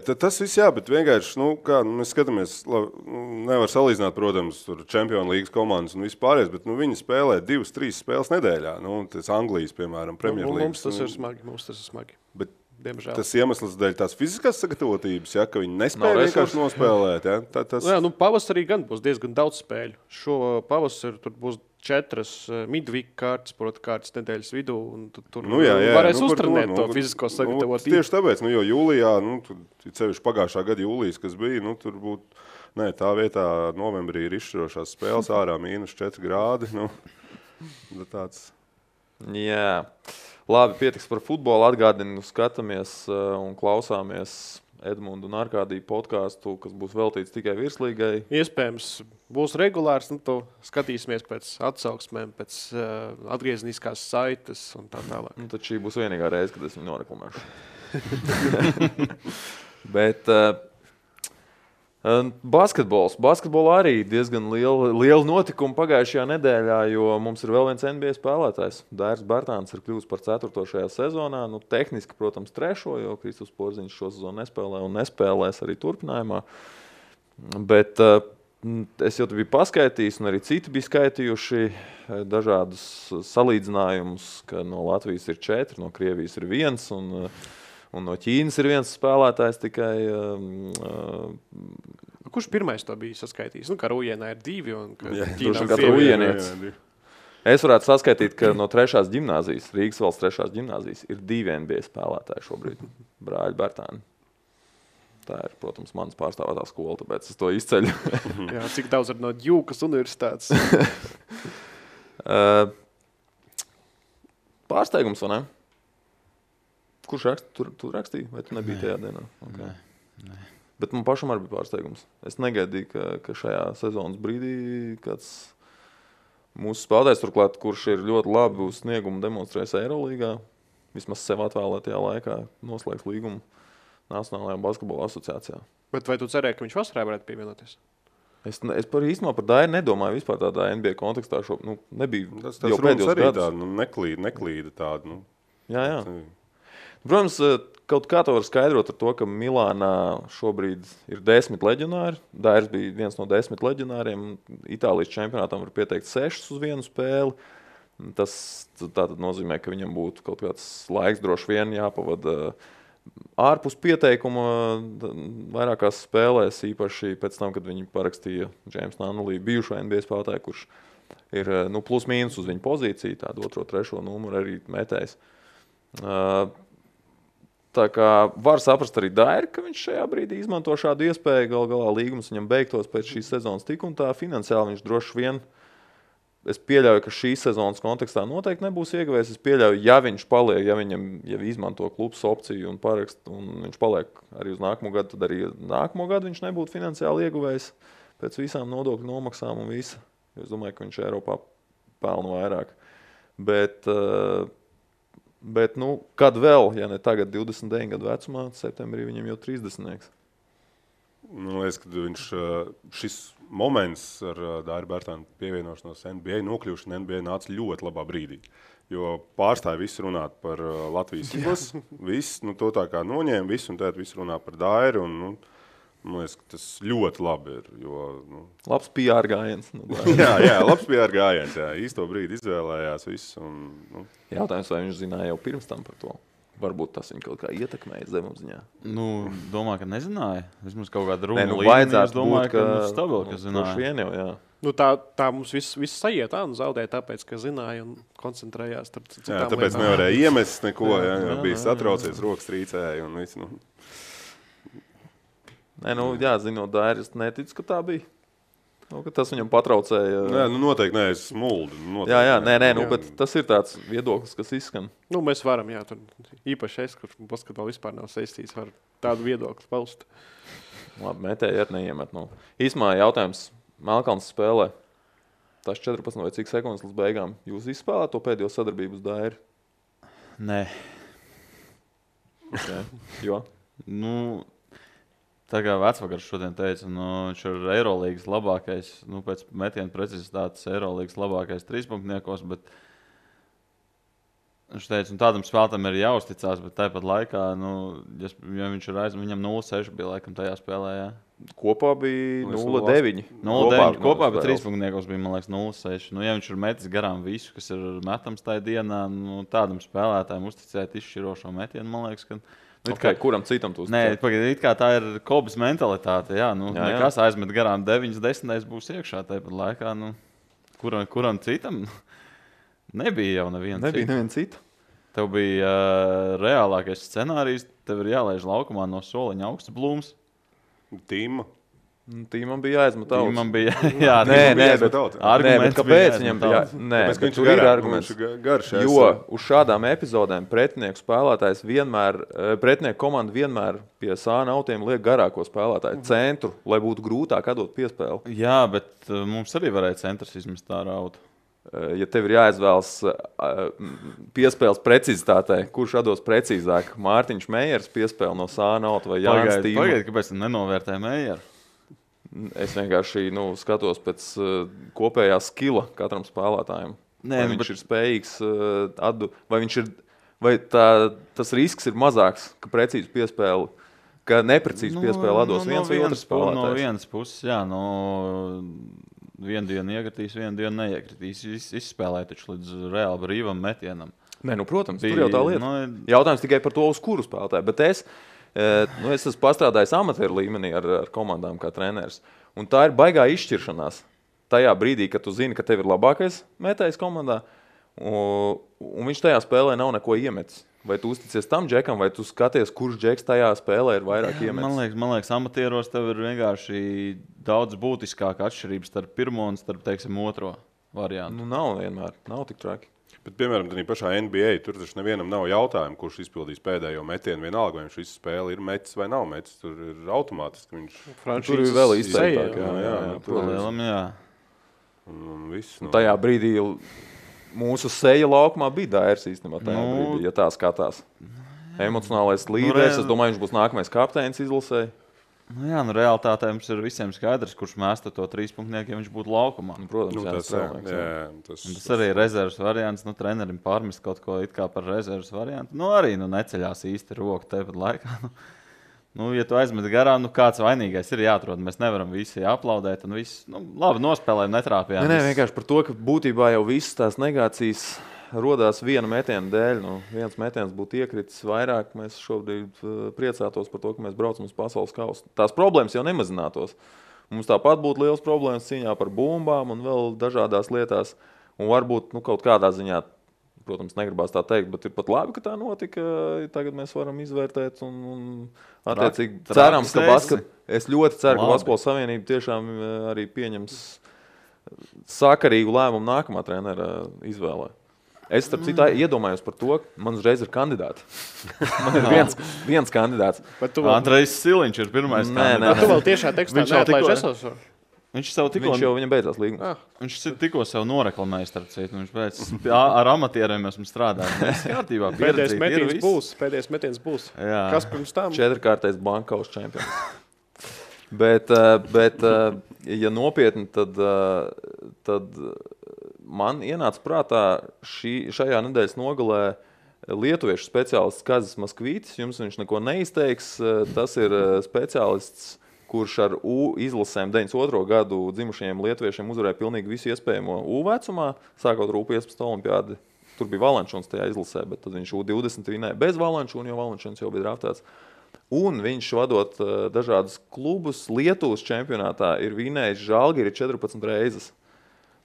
Tas viss jā, bet vienkārši, mēs skatāmies, nevar salīdzināt, protams, tur Champions League komandas un vispārējais, bet viņi spēlē 2-3 spēles nedēļā. Tas Anglijas, piemēram, Premier League. Mums tas ir smagi. diemžēl. Tas iemesls dēļ tās fiziskās sagatavotības, ja, ka viņi nespēja vienkārši nospēlēt. Ja? Pavasarī gan būs diezgan daudz spēļu. Šo pavasaru tur būs 4 midweek kārtas, kārtas nedēļas vidū, un tur varēs uztrenēt to fizisko sagatavotību. Tieši tāpēc, jo jūlijā, cevišķi pagājušā gada jūlijas, kas bija, tur būtu, tā vietā novembrī ir izšķirošās spēles ārā -4 grādi. Tāds. Jā, labi, pietiks par futbolu. Atgādinu, skatāmies un klausāmies Edmundu un Arkādiju podcastu, kas būs veltīts tikai virslīgai. Iespējams, būs regulārs, to skatīsimies pēc atsauksmēm, pēc atgriezniskās saites un tā tālāk. Tad šī būs vienīgā reize, kad es viņu noreklamēšu. Bet basketbolā arī diezgan liela notikuma pagājušajā nedēļā, jo mums ir vēl viens NBA spēlētājs. Dairis Bartāns ir kļuvis par 4. šajā sezonā. Tehniski, protams, 3., jo Kristus Porziņš šo sezonu nespēlē un nespēlēs arī turpinājumā. Bet es jau te biju paskaitījis, un arī citi bija skaitījuši dažādus salīdzinājumus, ka no Latvijas ir 4, no Krievijas ir 1, un no Ķīnas ir 1 spēlētājs tikai. Kurš pirmais to bija saskaitījis? Ka Rūjienā ir 2 un Ķīnā ir Rūjienietis. Es varētu saskaitīt, ka no 3. ģimnāzijas, Rīgas valsts 3. ģimnāzijas, ir 2 NBA spēlētāji šobrīd. Brāļi Bartāni. Tā ir, protams, manas pārstāvētā skola, tāpēc es to izceļu. Jā, cik daudz ir no Djukas universitātes? Pārsteigums, vai ne? Kurš tu rakstīji, vai tu nebija tajā dienā? Okay. Nē. Bet man pašam arī bija pārsteigums. Es negaidīju, ka šajā sezonas brīdī kāds mūsu spēlētājs turklāt, kurš ir ļoti labi uz sniegumu demonstrējis Eirolīgā, vismaz sev atvēlētajā laikā noslēgs līgumu Nacionālajā basketbola asociācijā. Bet vai tu cerēji, ka viņš vasarā varētu pievienoties? Es par īstenībā par Dairu nedomāju vispār tādā NBA kontekstā. Nebija tas jau pēdējos gadus. Tā, neklīda tāda. Jā. Protams, kaut kā to var skaidrot ar to, ka Milānā šobrīd ir 10 leģionāri. Dairis bija viens no 10 leģionāriem. Itālijas čempionātam var pieteikt 6 uz vienu spēli. Tas tātad nozīmē, ka viņam būtu kaut kāds laiks droši vien jāpavada ārpus pieteikuma vairākās spēlēs, īpaši pēc tam, kad viņi parakstīja James Nunnally, bijušo NBA spēlētāju, kurš ir plus mīnus uz viņu pozīciju, tādu 2., 3. numuru arī metējis. Tā kā var saprast arī Dairu, ka viņš šajā brīdī izmanto šādu iespēju. Gal galā līgums viņam beigtos pēc šīs sezonas tik un tā. Finansiāli viņš droši vien, es pieļauju, ka šīs sezonas kontekstā noteikti nebūs ieguvējis. Es pieļauju, ja viņš paliek, ja izmanto klubs opciju un parakst, un viņš paliek arī uz nākamo gadu, tad arī nākamo gadu viņš nebūtu finansiāli ieguvējis pēc visām nodokļu nomaksām un visa. Es domāju, ka viņš Eiropā pelna vairāk. Bet kad vēl, ja ne tagad 29 gadu vecumā, septembrī viņam jau 30. Man liekas, ka šis moments ar Dairu Bartānu pievienošanos NBA, nokļūšanu NBA nāca ļoti labā brīdī. Jo pārstāja visu runāt par Latvijas izlases, viss, to tā kā noņēma visu, un tad visu runā par Dairu, un man liekas, ka tas ļoti labi ir. Labs PR gājiens. jā, labs PR gājiens. Jā. Īsto brīdi izvēlējās visu. Jautājums, vai viņš zināja jau pirms tam par to? Varbūt tas viņu kaut kā ietekmēja zemapziņā. Domāju, ka nezināja. Vismaz kaut kāda runa līmenī. Es domāju, ka stabili, ka zināja. Vien jau, jā. Tā mums viss sajiet, un zaudēja tāpēc, ka zināja un koncentrējās. Jā, tāpēc nevarēja iemest neko, jā, bija satraucies, rokas trīcēja un viss. Zinot Dairu, es neticu, ka tā bija. Ka tas viņam patraucēja. Noteikti nē, es smuldu. Bet tas ir tāds viedoklis, kas izskan. Mēs varam, tur īpaši es, kurš basketbolu vispār nav saistīts, var tādu viedokli paust. Labi, metēji ar neiemet. Īsmā jautājums. Melkalns spēlē. Tas 14 vai cik sekundes līdz beigām. Jūs izspēlēt to pēdējo sadarbību uz Dairu? Nē. Okay. Jo? Tā kā Vecvakars šodien teica, viņš ir Eirolīgas labākais, pēc metiena precizitātes Eirolīgas labākais trīspunktniekos, bet viņš teica, tādam spēlētājam ir jāuzticās, bet tāpat laikā, ja viņš ir viņam 0,6 bija laikam tajā spēlē, jā. Kopā bija 0,9. 0,9 kopā, bet trīspunktniekos bija, man liekas, 0,6. Ja viņš ir metis garām visu, kas ir metams tajā dienā, tādam spēlētājam uzticēt izšķirošo metienu, man liekas, ka Okay, kuram citam tu Nē, pagaidi, it kā tā ir Kobas mentalitāte. Jā, nu, nekas aizmet garām 9-10 būs iekšā tāpat laikā. Nu, kuram citam nebija jau neviena cita. Tev bija reālākais scenārijs, tev ir jālaiž laukumā no soliņa augsts blūms. Tīmam bija jāizmet augs. Tīmam bija bet kāpēc viņam bija? Nē, viņš ir arguments. Garš, jo uz šādām epizodēm pretinieku spēlētājs pretinieku komanda vienmēr pie sāna autiem liek garāko spēlētāju centru, lai būtu grūtāk atdot piespēli. Jā, bet mums arī varēja centrs izmest tā rautu. Ja tev ir jāizvēlas piespēles precizitātei, kurš atdos precīzāk? Mārtiņš Meijers piespēle no sāna auta vai Jānis Tīma? Pagaid, kāpēc nenovērtē Meijeru? Es vienkārši skatos pēc kopējā skila katram spēlētājam. Vai viņš ir spējīgs vai tas risks ir mazāks, ka precīzi piespēli, ka neprecīzi piespēli atdos viens vai otrs spēlētājs? No vienas puses, jā, vienu dienu iekritīs, vienu dienu neiekritīs. Izspēlēja taču līdz reāli brīvam metienam. Nē, protams, tur jau tā lieta. Jautājums tikai par to, uz kuru spēlētāju. Bet es esmu pastrādājis amatieru līmenī ar komandām kā treneris. Un tā ir baigā izšķiršanās. Tajā brīdī, kad tu zini, ka tev ir labākais metējs komandā, un viņš tajā spēlē nav neko iemetis. Vai tu uzticies tam džekam, vai tu skaties, kurš džeks tajā spēlē ir vairāk iemetis? Man liekas, amatieros tev ir vienkārši daudz būtiskāka atšķirība starp pirmo un starp, teiksim, otro variantu. Nav vienmēr. Nav tik traki. Bet, piemēram, tādā pašā NBA tur taču nevienam nav jautājumu, kurš izpildīs pēdējo metienu. Vienalga, vai viņš visu spēli ir metis vai nav metis. Tur ir automātiski. Tur ir vēl izteiktāk. Jā. Tajā brīdī mūsu seja laukumā bija Dairs īstenībā tajā brīdī, ja tā skatās. Emocionālais līderis, es domāju, viņš būs nākamais kapteinis izlasē. Realitātē mums ir visiem skaidrs, kurš mēsta to 3-punktnieku, ja viņš būtu laukumā. Protams, tas arī ir rezerves variants. Trenerim pārmest kaut ko it kā par rezerves variantu. Arī neceļās īsti roku tepat laikā. Ja tu aizmet garām, kāds vainīgais ir jāatrod. Mēs nevaram visi aplaudēt un visi, labi, nospēlējam, netrāpījām. Nē, vienkārši par to, ka būtībā jau visas tās negācijas rodās viena metiena dēļ. Viens metiens būtu iekritis vairāk. Mēs šobrīd priecātos par to, ka mēs braucam uz pasaules kausu. Tās problēmas jau nemazinātos. Mums tāpat būtu liels problēmas cīņā par bumbām un vēl dažādās lietās. Un varbūt kaut kādā ziņā, protams, negribās tā teikt, bet ir pat labi, ka tā notika. Tagad mēs varam izvērtēt un attiecīgi cerams, ka es ļoti ceru, ka Basketbola Savienība tiešām arī pieņems sakarīgu lēmumu nākamā trenera izvēlē. Es, starp citu, iedomājos par to, ka man uzreiz ir kandidāti. Man ir viens kandidāts. Andrejs Siliņš ir pirmais kandidāts. Tu vēl tiešā tekstā neatlaiž esošo? Viņš jau viņam beidzās līgums. Viņš tikko sev noreklamēja, starp citu. Viņš ar amatieriem esmu strādājis. Kārtībā, pēdējais metiens būs. Jā. Kas pirms tam? 4-kārtais Bankaus čempions. Bet, ja nopietni, tad man ienāca prātā šajā nedēļas nogalē lietuviešu speciālists Kazis Maskvītis. Jums viņš neko neizteiks. Tas ir speciālists, kurš ar U izlasēm 92. gadu dzimušajiem lietuviešiem uzvarēja pilnīgi visu iespējamo U vecumā, sākot ar U15 olimpiādi. Tur bija Valančuns tajā izlasē, bet tad viņš U20 vinēja bez Valančuna, jo Valančuns jau bija draftēts. Un viņš vadot dažādus klubus Lietuvas čempionātā ir vinējis Žalgiri 14 reizes.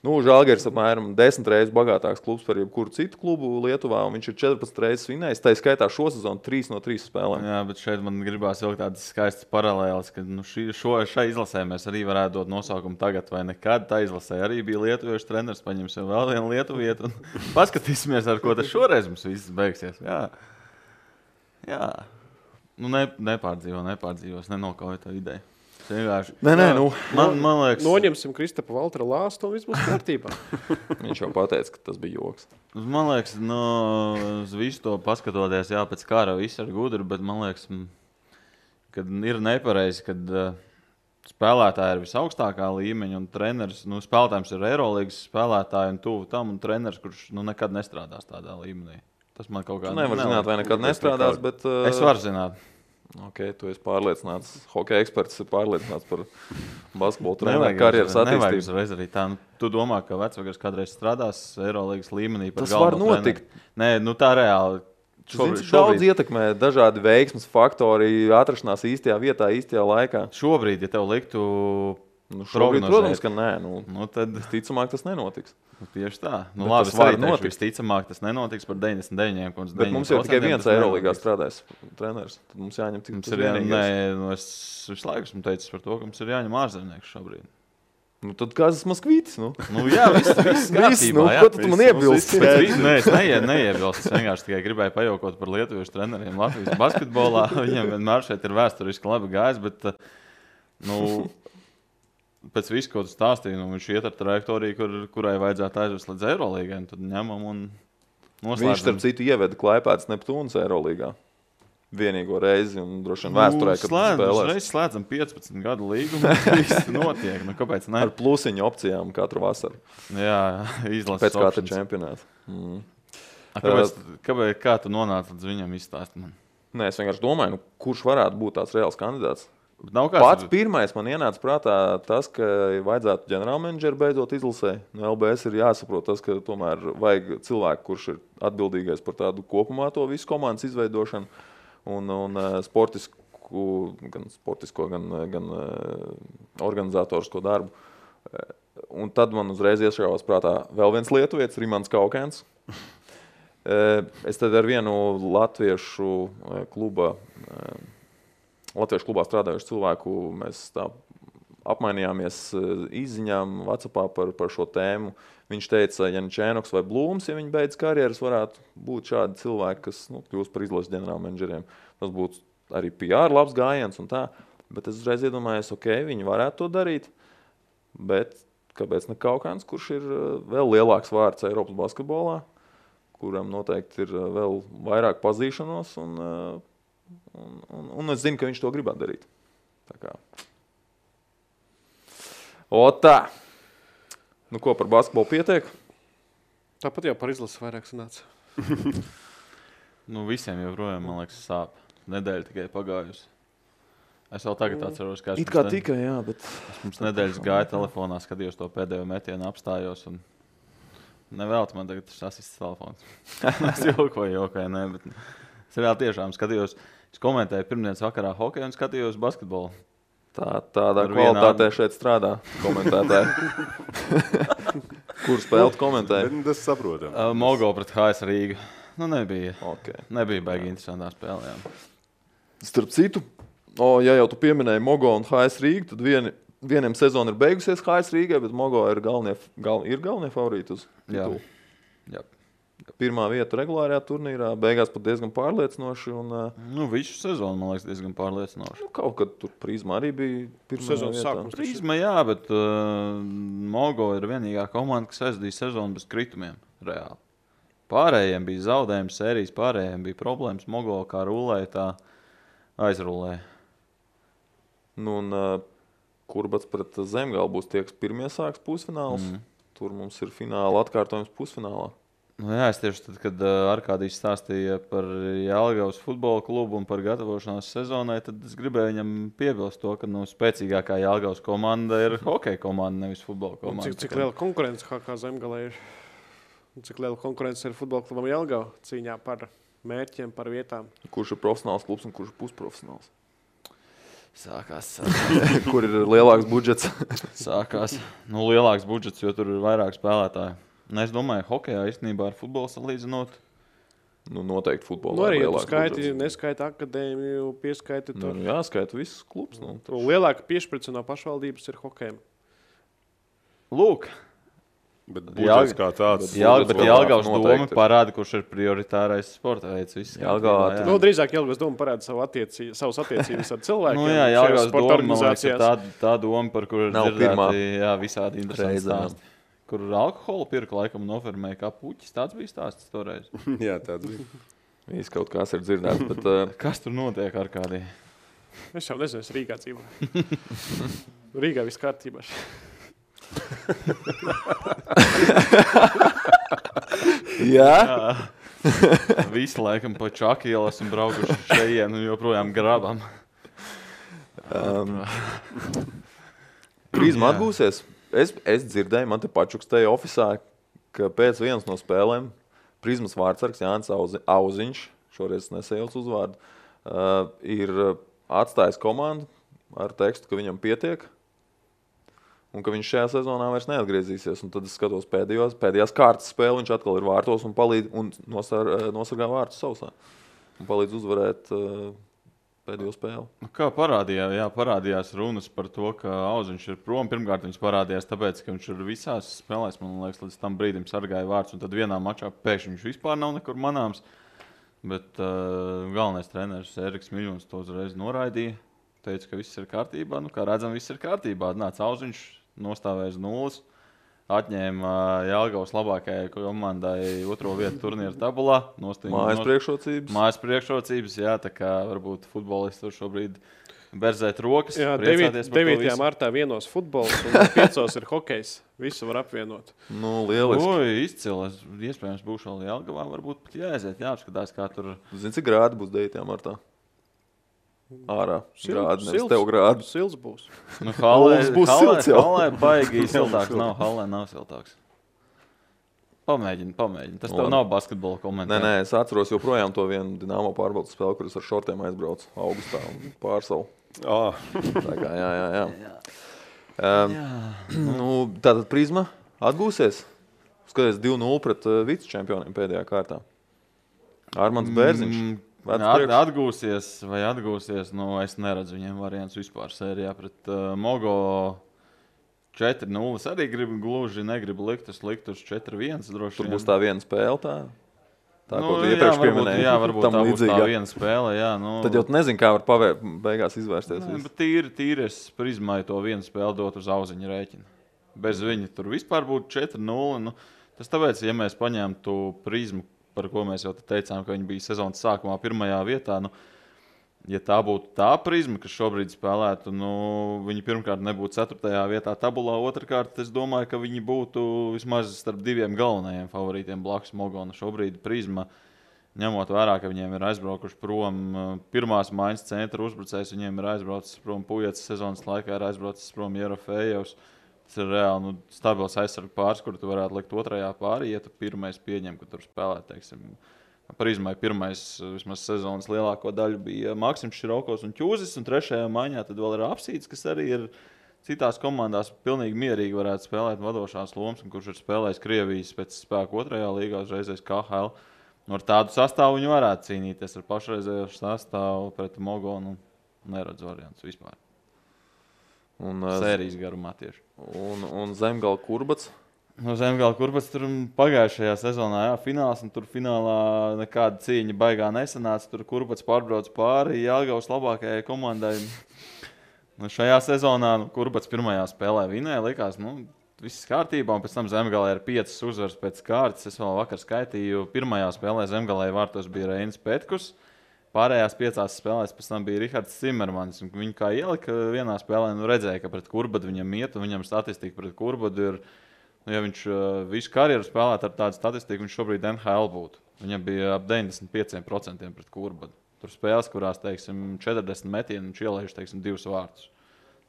Žalgiris apmēram 10 reizes bagātāks klubs par jebkuru citu klubu Lietuvā, un viņš ir 14 reizes vinējis. Tā skaitā šo sezonu 3 no 3 spēlēm. Jā, bet šeit man gribās vilkt tādas skaistas paralēles, ka šai izlasē mēs arī varētu dot nosaukumu tagad vai nekad. Tā izlasē arī bija lietuviešu treneris, paņemsim vēl vienu lietuvietu un paskatīsimies, ar ko tas šoreiz mums viss beigsies. Jā. Nepārdzīvos, nenokauju to ideju. Man liekas, noņemsim Kristapa Valtera lāstu un viss būs kārtībā. Viņš jau pateica, ka tas bija joks. Man liekas, uz visu to paskatoties, pēc kara viss ir gudri, bet man liekas, ka ir nepareizi, kad spēlētāji ir visaugstākā līmeņa un treneris, spēlētājs ir Eirolīgas spēlētāji un tuvu tam un treneris, kurš nekad nestrādās tādā līmenī. Tas man kaut kā nevar zināt, vai nekad nestrādās, bet... Es varu zināt. Tu esi pārliecināts, hokeja eksperts ir pārliecināts par basketbolu treneru karjeras attīstību. Nevajag uzreiz arī tā. Tu domā, ka vecvagars kādreiz strādās Eirolīgas līmenī par tas galveno var notikt. Treneri. Nē, tā reāli. Daudz ietekmē dažādi veiksmes faktori, atrašanās īstajā vietā, īstajā laikā. Šobrīd, ja tev liktu šobrīd, protams, ka nē. Tad visticamāk tas nenotiks. Tieši tā. Labi, tas var notikt. Visticamāk tas nenotiks par 99. Bet mums jau tikai viens Eirolīgā strādājis treneris. Tad mums jāņem tik mums ir vienīgais. Es visu laiku esmu teicis par to, ka mums ir jāņem ārzemnieks šobrīd. Tad kāds ir Moskvītis? Jā, viss kārtībā. Ko tu man iebilsti? Nē, es neiebilstu. Es vienkārši tikai gribēju pajaukot par lietuviešu treneriem Latvijas basketbolā. Viņam vienmēr šeit ir vēsturiski labi gājis, bet pēc visu, ko tu stāstīji, viņš iet ar trajektoriju, kurai vajadzētu aizvest līdz Eirolīgai. Tad ņemam un noslēdzam. Viņš, starp citu, ieveda Klaipēdas Neptūnas Eirolīgā. Vienīgo reizi un droši vien vēsturē, kad spēlēs. Mēs slēdzam 15 gadu līgumu, viss notiek. Kāpēc ne? Ar plusiņu opcijām katru vasaru. Jā, izlases pēc katra čempionāta. Kā tu nonāci līdz viņam izstāst man? Nē, es vienkārši domāju, kurš varētu būt tāds reāls kandidāts. Pats pirmais man ienāca prātā tas, ka vajadzētu ģenerālmenedžeru beidzot izlasē. No LBS ir jāsaprot tas, ka tomēr vajag cilvēku, kurš ir atbildīgais par tādu kopumā to visu komandas izveidošanu. Un sportisko, gan organizatorisko darbu. Un tad man uzreiz iešāvās prātā vēl viens lietuvietis, Rimants Kaukēns. Es tad ar vienu latviešu klubā strādājušu cilvēku mēs tā apmainījāmies izziņām WhatsAppā par šo tēmu. Viņš teica, ja Čēnoks vai Blūms, ja viņi beidz karjeras, varētu būt šādi cilvēki, kas kļūst par izlases ģenerālmenedžeriem. Tas būtu arī PR labs gājiens un tā. Bet es uzreiz iedomājos, viņi varētu to darīt. Bet kāpēc ne Kaukāns, kurš ir vēl lielāks vārds Eiropas basketbolā, kuram noteikti ir vēl vairāk pazīšanos un es zinu, ka viņš to gribētu darīt. Tā kā. Tā. Ko par basketbolu pietiek? Tāpat jau par izlasi vairāk sanāca. Visiem joprojām, man liekas, sāp. Nedēļa tikai pagājusi. Es vēl tagad atceros, kā it kā tikai, jā, bet... Es mums nedēļas gāju telefonā, skatījos to pēdējo metienu, apstājos un nevēlti man tagad tas asists telefons. Es jokoju, nē, bet es reāli tiešām skatījos. Es komentēju pirmdienas vakarā hokeju un skatījos basketbolu. Tādā kvalitātē šeit strādā komentētāji. Kur spēlēt komentēja? Tas saprotam. Mogo pret HS Rīga. Nebija. Okay. Nebija baigi interesantā spēlē. Starp citu, ja jau tu pieminēji Mogo un HS Rīgu, tad vieniem sezona ir beigusies HS Rīgai, bet Mogo ir galvenie favorīti uz titulu. Jā. Pirmā vieta regulārajā turnīrā, beigās pat diezgan pārliecinoši. Visu sezonu, man liekas, diezgan pārliecinoši. Kaut kad tur Prizma arī bija pirmā sezonas vietā. sākums. Prizma, jā, bet Mogo ir vienīgā komanda, kas aizdīja sezonu bez kritumiem. Reāli. Pārējiem bija zaudējumi sērijas, pārējiem bija problēmas. Mogo kā rulēja, tā aizrulēja. Kurbats pret Zemgali būs tie, kas pirmie sāks pusfināls. Tur mums ir fināla atkārtojums pusfinālā. Jā, es tieši tad, kad Arkādijs stāstīja par Jelgavas futbola klubu un par gatavošanās sezonai, tad es gribēju viņam piebilst to, ka spēcīgākā Jelgavas komanda ir hokeja komanda, nevis futbola komanda. Cik liela konkurence kā Zemgalē ir? Cik liela konkurence ir futbola klubam Jelgava cīņā par mērķiem, par vietām? Kurš ir profesionāls klubs un kurš ir pusprofesionāls? Sākās. Kur ir lielāks budžets? Sākās. Lielāks budžets, jo tur ir vairāk spēlētāju. Es domāju, hokejā īstenībā ar futbolu salīdzinot. Noteikti futbolā. Arī, ja tu skaiti, neskaita akadēmiju, pieskaiti tur. Jā, skaita visus klubs. Lielāka piešprica no pašvaldības ir hokejam. Lūk. Bet budžets kā tāds. Bet Jelgavas doma parāda, kurš ir prioritārais sporta veids. Drīzāk Jelgavas doma parāda savas attiecības ar cilvēkiem. Jelgavas doma, man liekas, tā doma, par kuru ir dzirdēti visādi interesanti stāsti. Kur alkoholu pirka laikam nofermēja kā puķis. Tāds bija stāsts toreiz. Jā, tāds bija. Viss kaut kas ir dzirdēts, bet... Kas tur notiek ar kādī? Es jau nezinu, es Rīgā dzīvoju. Rīgā viss kārtībā. Jā? Visi laikam pa Čaku ielas un braukuši šeit un joprojām grabam. Prizma atgūsies. Es dzirdēju, man te pačukstēja ofisā, ka pēc vienas no spēlēm Prizmas vārdsargs Jānis Auziņš šoreiz nesajauc uzvārdu, ir atstājis komandu ar tekstu, ka viņam pietiek un ka viņš šajā sezonā vairs neatgriezīsies. Un tad es skatos pēdējās kārtas spēli, viņš atkal ir vārtos un palīdz un nosargā vārtus sausā. Un palīdz uzvarēt pēdējo spēli. Kā parādījās runas par to, ka Auziņš ir prom. Pirmkārt, viņš parādījās tāpēc, ka viņš ir visās spēlēs, man liekas, līdz tam brīdim sargāja vārtus. Un tad vienā mačā pēkšņi viņš vispār nav nekur manāms. Bet galvenais treneris Eriks Miļons to uzreiz noraidīja. Teica, ka viss ir kārtībā. Nu, kā redzam, viss ir kārtībā. Nāca Auziņš, nostāvēja uz nulles. Atņēma Jelgavas labākajai komandai 2. vietu turnīra tabulā. Mājas priekšrocības, jā, tā kā varbūt futbolisti tur šobrīd berzēt rokas. Jā, 9. martā vienos futbols un 5. ir hokejs. Visu var apvienot. Nu, lieliski. Izcili. Iespējams, būšu vēl Jelgavā, varbūt pat jāaiziet, jāapskatās, kā tur. Zini, cik grādi būs 9. martā? Ārā. Grādi, nevis tev grādi. Sils būs. Nu, Hallē būs silts jau. Hallē baigi siltāks. Hallē nav siltāks. Pamēģini. Tas tev nav basketbola komentāri. Nē, es atceros joprojām to vienu Dinamo pārbaudas spēli, kuras ar šortiem aizbraucu augustā un pārsalu. Tā kā, jā. Tātad Prizma atgūsies. Skaties 2-0 pret vicečempioniem pēdējā kārtā. Armands Bērziņš. Atgūsies, nu, es neredzu viņiem variants vispār sērijā pret Mogo 4-0. Arī negribu likt uz 4-1. Tur būs tā viena spēle tā, ko tu iepriekš pieminēji. Jā, varbūt tā būs tā viena spēle. Jā, nu. Tad jau nezinu, kā var beigās izvērsties. Bet tīri es Prizmai to vienu spēli dot uz Auziņa rēķina. Bez viņa tur vispār būtu 4-0. Nu, tas tāpēc, ja mēs paņemtu Prizmu, par ko mēs jau teicām, ka viņi bija sezonas sākumā 1. vietā. Nu, ja tā būtu tā Prizma, kas šobrīd spēlētu, nu, viņi pirmkārt nebūtu 4. vietā tabulā. Otrkārt, es domāju, ka viņi būtu vismaz starp 2 galvenajiem favorītiem blakus Mogona. Šobrīd Prizma, ņemot vērā, ka viņiem ir aizbraukuši prom pirmās maiņas centra uzbrucējs, viņiem ir aizbraucis prom Pujats sezonas laikā, ir aizbraucis prom Jerofejevs. Tas ir reāli stabils aizsargu pāris, kur tu varētu likt 2. pārī, ja tu pirmais pieņem, ka tur spēlē, teiksim, Prizmai pirmais vismaz sezonas lielāko daļu bija Maksims Širokos un Ķūzis, un 3. maiņā tad vēl ir Apsīts, kas arī ir citās komandās pilnīgi mierīgi varētu spēlēt vadošās lomas, un kurš ir spēlējis Krievijas pēc spēku 2. līgā, uzreizēs KHL. Ar tādu sastāvu viņi varētu cīnīties ar pašreizējo sastāvu pret Mogonu. Neredzu variants vispār. Sērijas garumā tieši. Un Zemgala Kurbats? Zemgala Kurbats tur pagājušajā sezonā, fināls, un tur finālā nekāda cīņa baigā nesanāca. Tur Kurbats pārbrauc pāri Jelgavas labākajai komandai. Šajā sezonā Kurbats pirmajā spēlē vinēja, likās, viss kārtībā, un pēc tam Zemgalē ir 5 uzvaras pēc kārtas. Es vēl vakar skaitīju, pirmajā spēlē Zemgalē vārtos bija Reinis Petkus. Pārējās 5 spēlēs pēc tam bija Rihards Cimermans. Viņu kā ielika vienā spēlē, redzēja, ka pret Kurbadu viņam iet, un viņam statistika pret Kurbadu ir, ja viņš visu karjeru spēlētu ar tādu statistiku, viņš šobrīd NHL būtu. Viņam bija ap 95% pret Kurbadu. Tur spēles, kurās, teiksim, 40 metienu, viņš ielaiž, teiksim, 2 vārtus.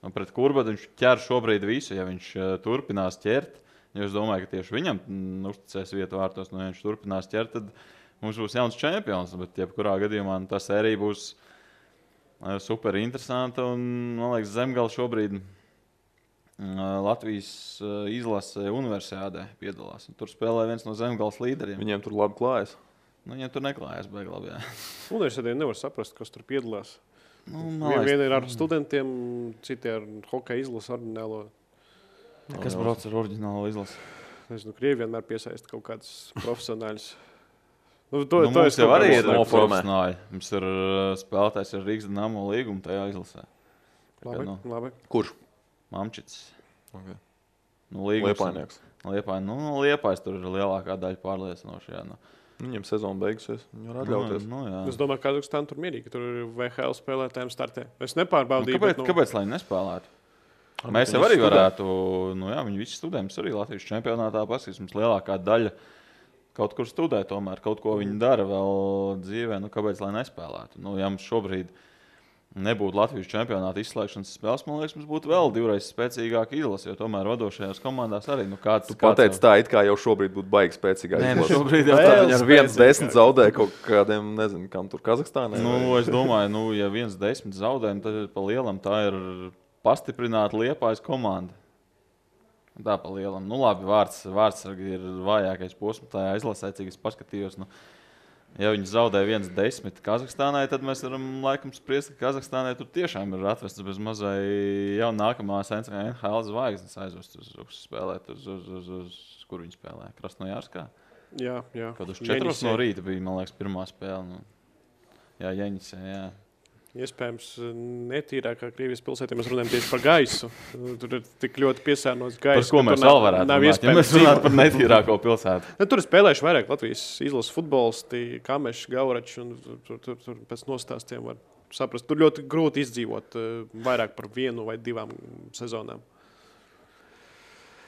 Un pret Kurbadu viņš ķer šobrīd visu, ja viņš turpinās ķert. Ja es domāju, ka tieši viņam uzticēs vietu vārtos, ja viņš turpinās ķert, tad mums būs jauns čempions, bet jebkurā gadījumā tā sērija būs super interesanta. Un, man liekas, Zemgala šobrīd Latvijas izlase universiādē piedalās. Un tur spēlē viens no Zemgalas līderiem. Viņiem tur labi klājas? Viņiem tur neklājas baigi labi, jā. Universiādē nevar saprast, kas tur piedalās. Viena ir ar studentiem, citi ar hokeja izlasi ordinālo. Kas brauc ar ordinālo izlasi? Nezinu, Krievi vienmēr piesaista kaut kādus profesionāļus. Mums jau arī ir profesionāļi. Mums ir spēlētājs ar Rīgas Dinamo līgumu tajā izlasē. Labi. Kurš? Mamčits. Okay. Liepainieks. Liepājs tur ir lielākā daļa pārliecinoši. Viņam sezona beigusies. Viņi var atļauties. Es domāju, ka Kazahstāna tur mierīgi, ka tur ir VHL spēlētājiem startē. Es nepārbaudīju. Kāpēc lai nespēlētu? Mēs jau arī varētu, viņi visi studē, mums arī Latvijas čempionātā paskatās, mums lielākā daļa kaut kur studē tomēr, kaut ko viņi dara vēl dzīvē, kāpēc lai nespēlētu. Ja mums šobrīd nebūtu Latvijas čempionāta izslēgšanas spēles, man liekas, mums būtu vēl divreiz spēcīgāka izlase, jo tomēr vadošajās komandās arī. Tu pateici tā, it kā jau šobrīd būtu baigi spēcīgāk. Nē, šobrīd jau viņi ar 1-10 zaudē kaut kādiem, nezinu, kam tur Kazahstānai. Es domāju, ja 1-10 zaudējumi, tad pa lielam tā ir pastiprināta Liepājas komanda. Tā pa lielam. Labi, vārdsargi ir vājākais posms tajā izlasē, cik es paskatījos. Ja viņi zaudē 1-10 Kazahstānai, tad mēs varam laikam spriest, ka Kazahstānai tur tiešām ir atvestas bez mazai jau nākamās NHL zvaigznes aizvest uz spēlēt, uz kur viņi spēlē? Krasnojārskā? Jā. Kad uz 4 no rīta bija, man liekas, pirmā spēle. Jā, Jeņisē, jā. Iespējams, netīrākā Krievijas pilsētā mēs runājam tieši par gaisu. Tur ir tik ļoti piesārņots gaiss. Par ko mēs vēl varētu runāt, ja mēs runātu par netīrāko pilsētu? Tur ir spēlējuši vairāk Latvijas izlases futbolisti, Kameši, Gaurači, un tur pēc nostāstiem var saprast. Tur ļoti grūti izdzīvot vairāk par 1 vai 2 sezonām.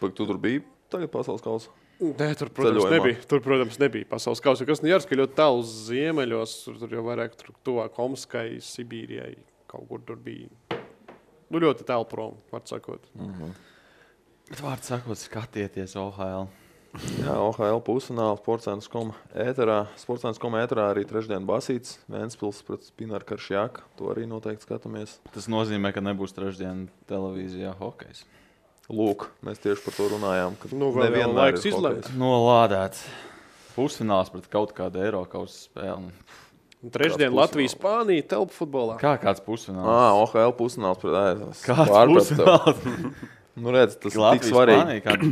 Tu tur biji tagad pasaules kausa? Nē, tur, protams, nebija pasaules kausa. Krasnojārska ir ļoti tālu ziemeļos, tur jau vairāk tuvāk Omskai, Sibīrijai, kaut kur tur bija. Ļoti tālu prom, var sakot. Bet vārds sakot, skatieties OHL. Jā, OHL pusfināla Sportscentrs.com ēterā. Sportscentrs.com ēterā arī trešdien Basīts, Ventspils pret Spinaru Karšjāku. To arī noteikti skatāmies. Tas nozīmē, ka nebūs trešdien televīzijā hokejs. Lūk, mēs tieši par to runājām, ka nevienmēr laiks izlēmt. Nolādēts. Pusfināls pret kaut kādu Eirokausa spēli. Trešdien Latvijas Spānija telpu futbolā. Kāds pusfināls? OHL pusfināls pret Kāds pusfināls? Redz, tas ir tik svarīgi.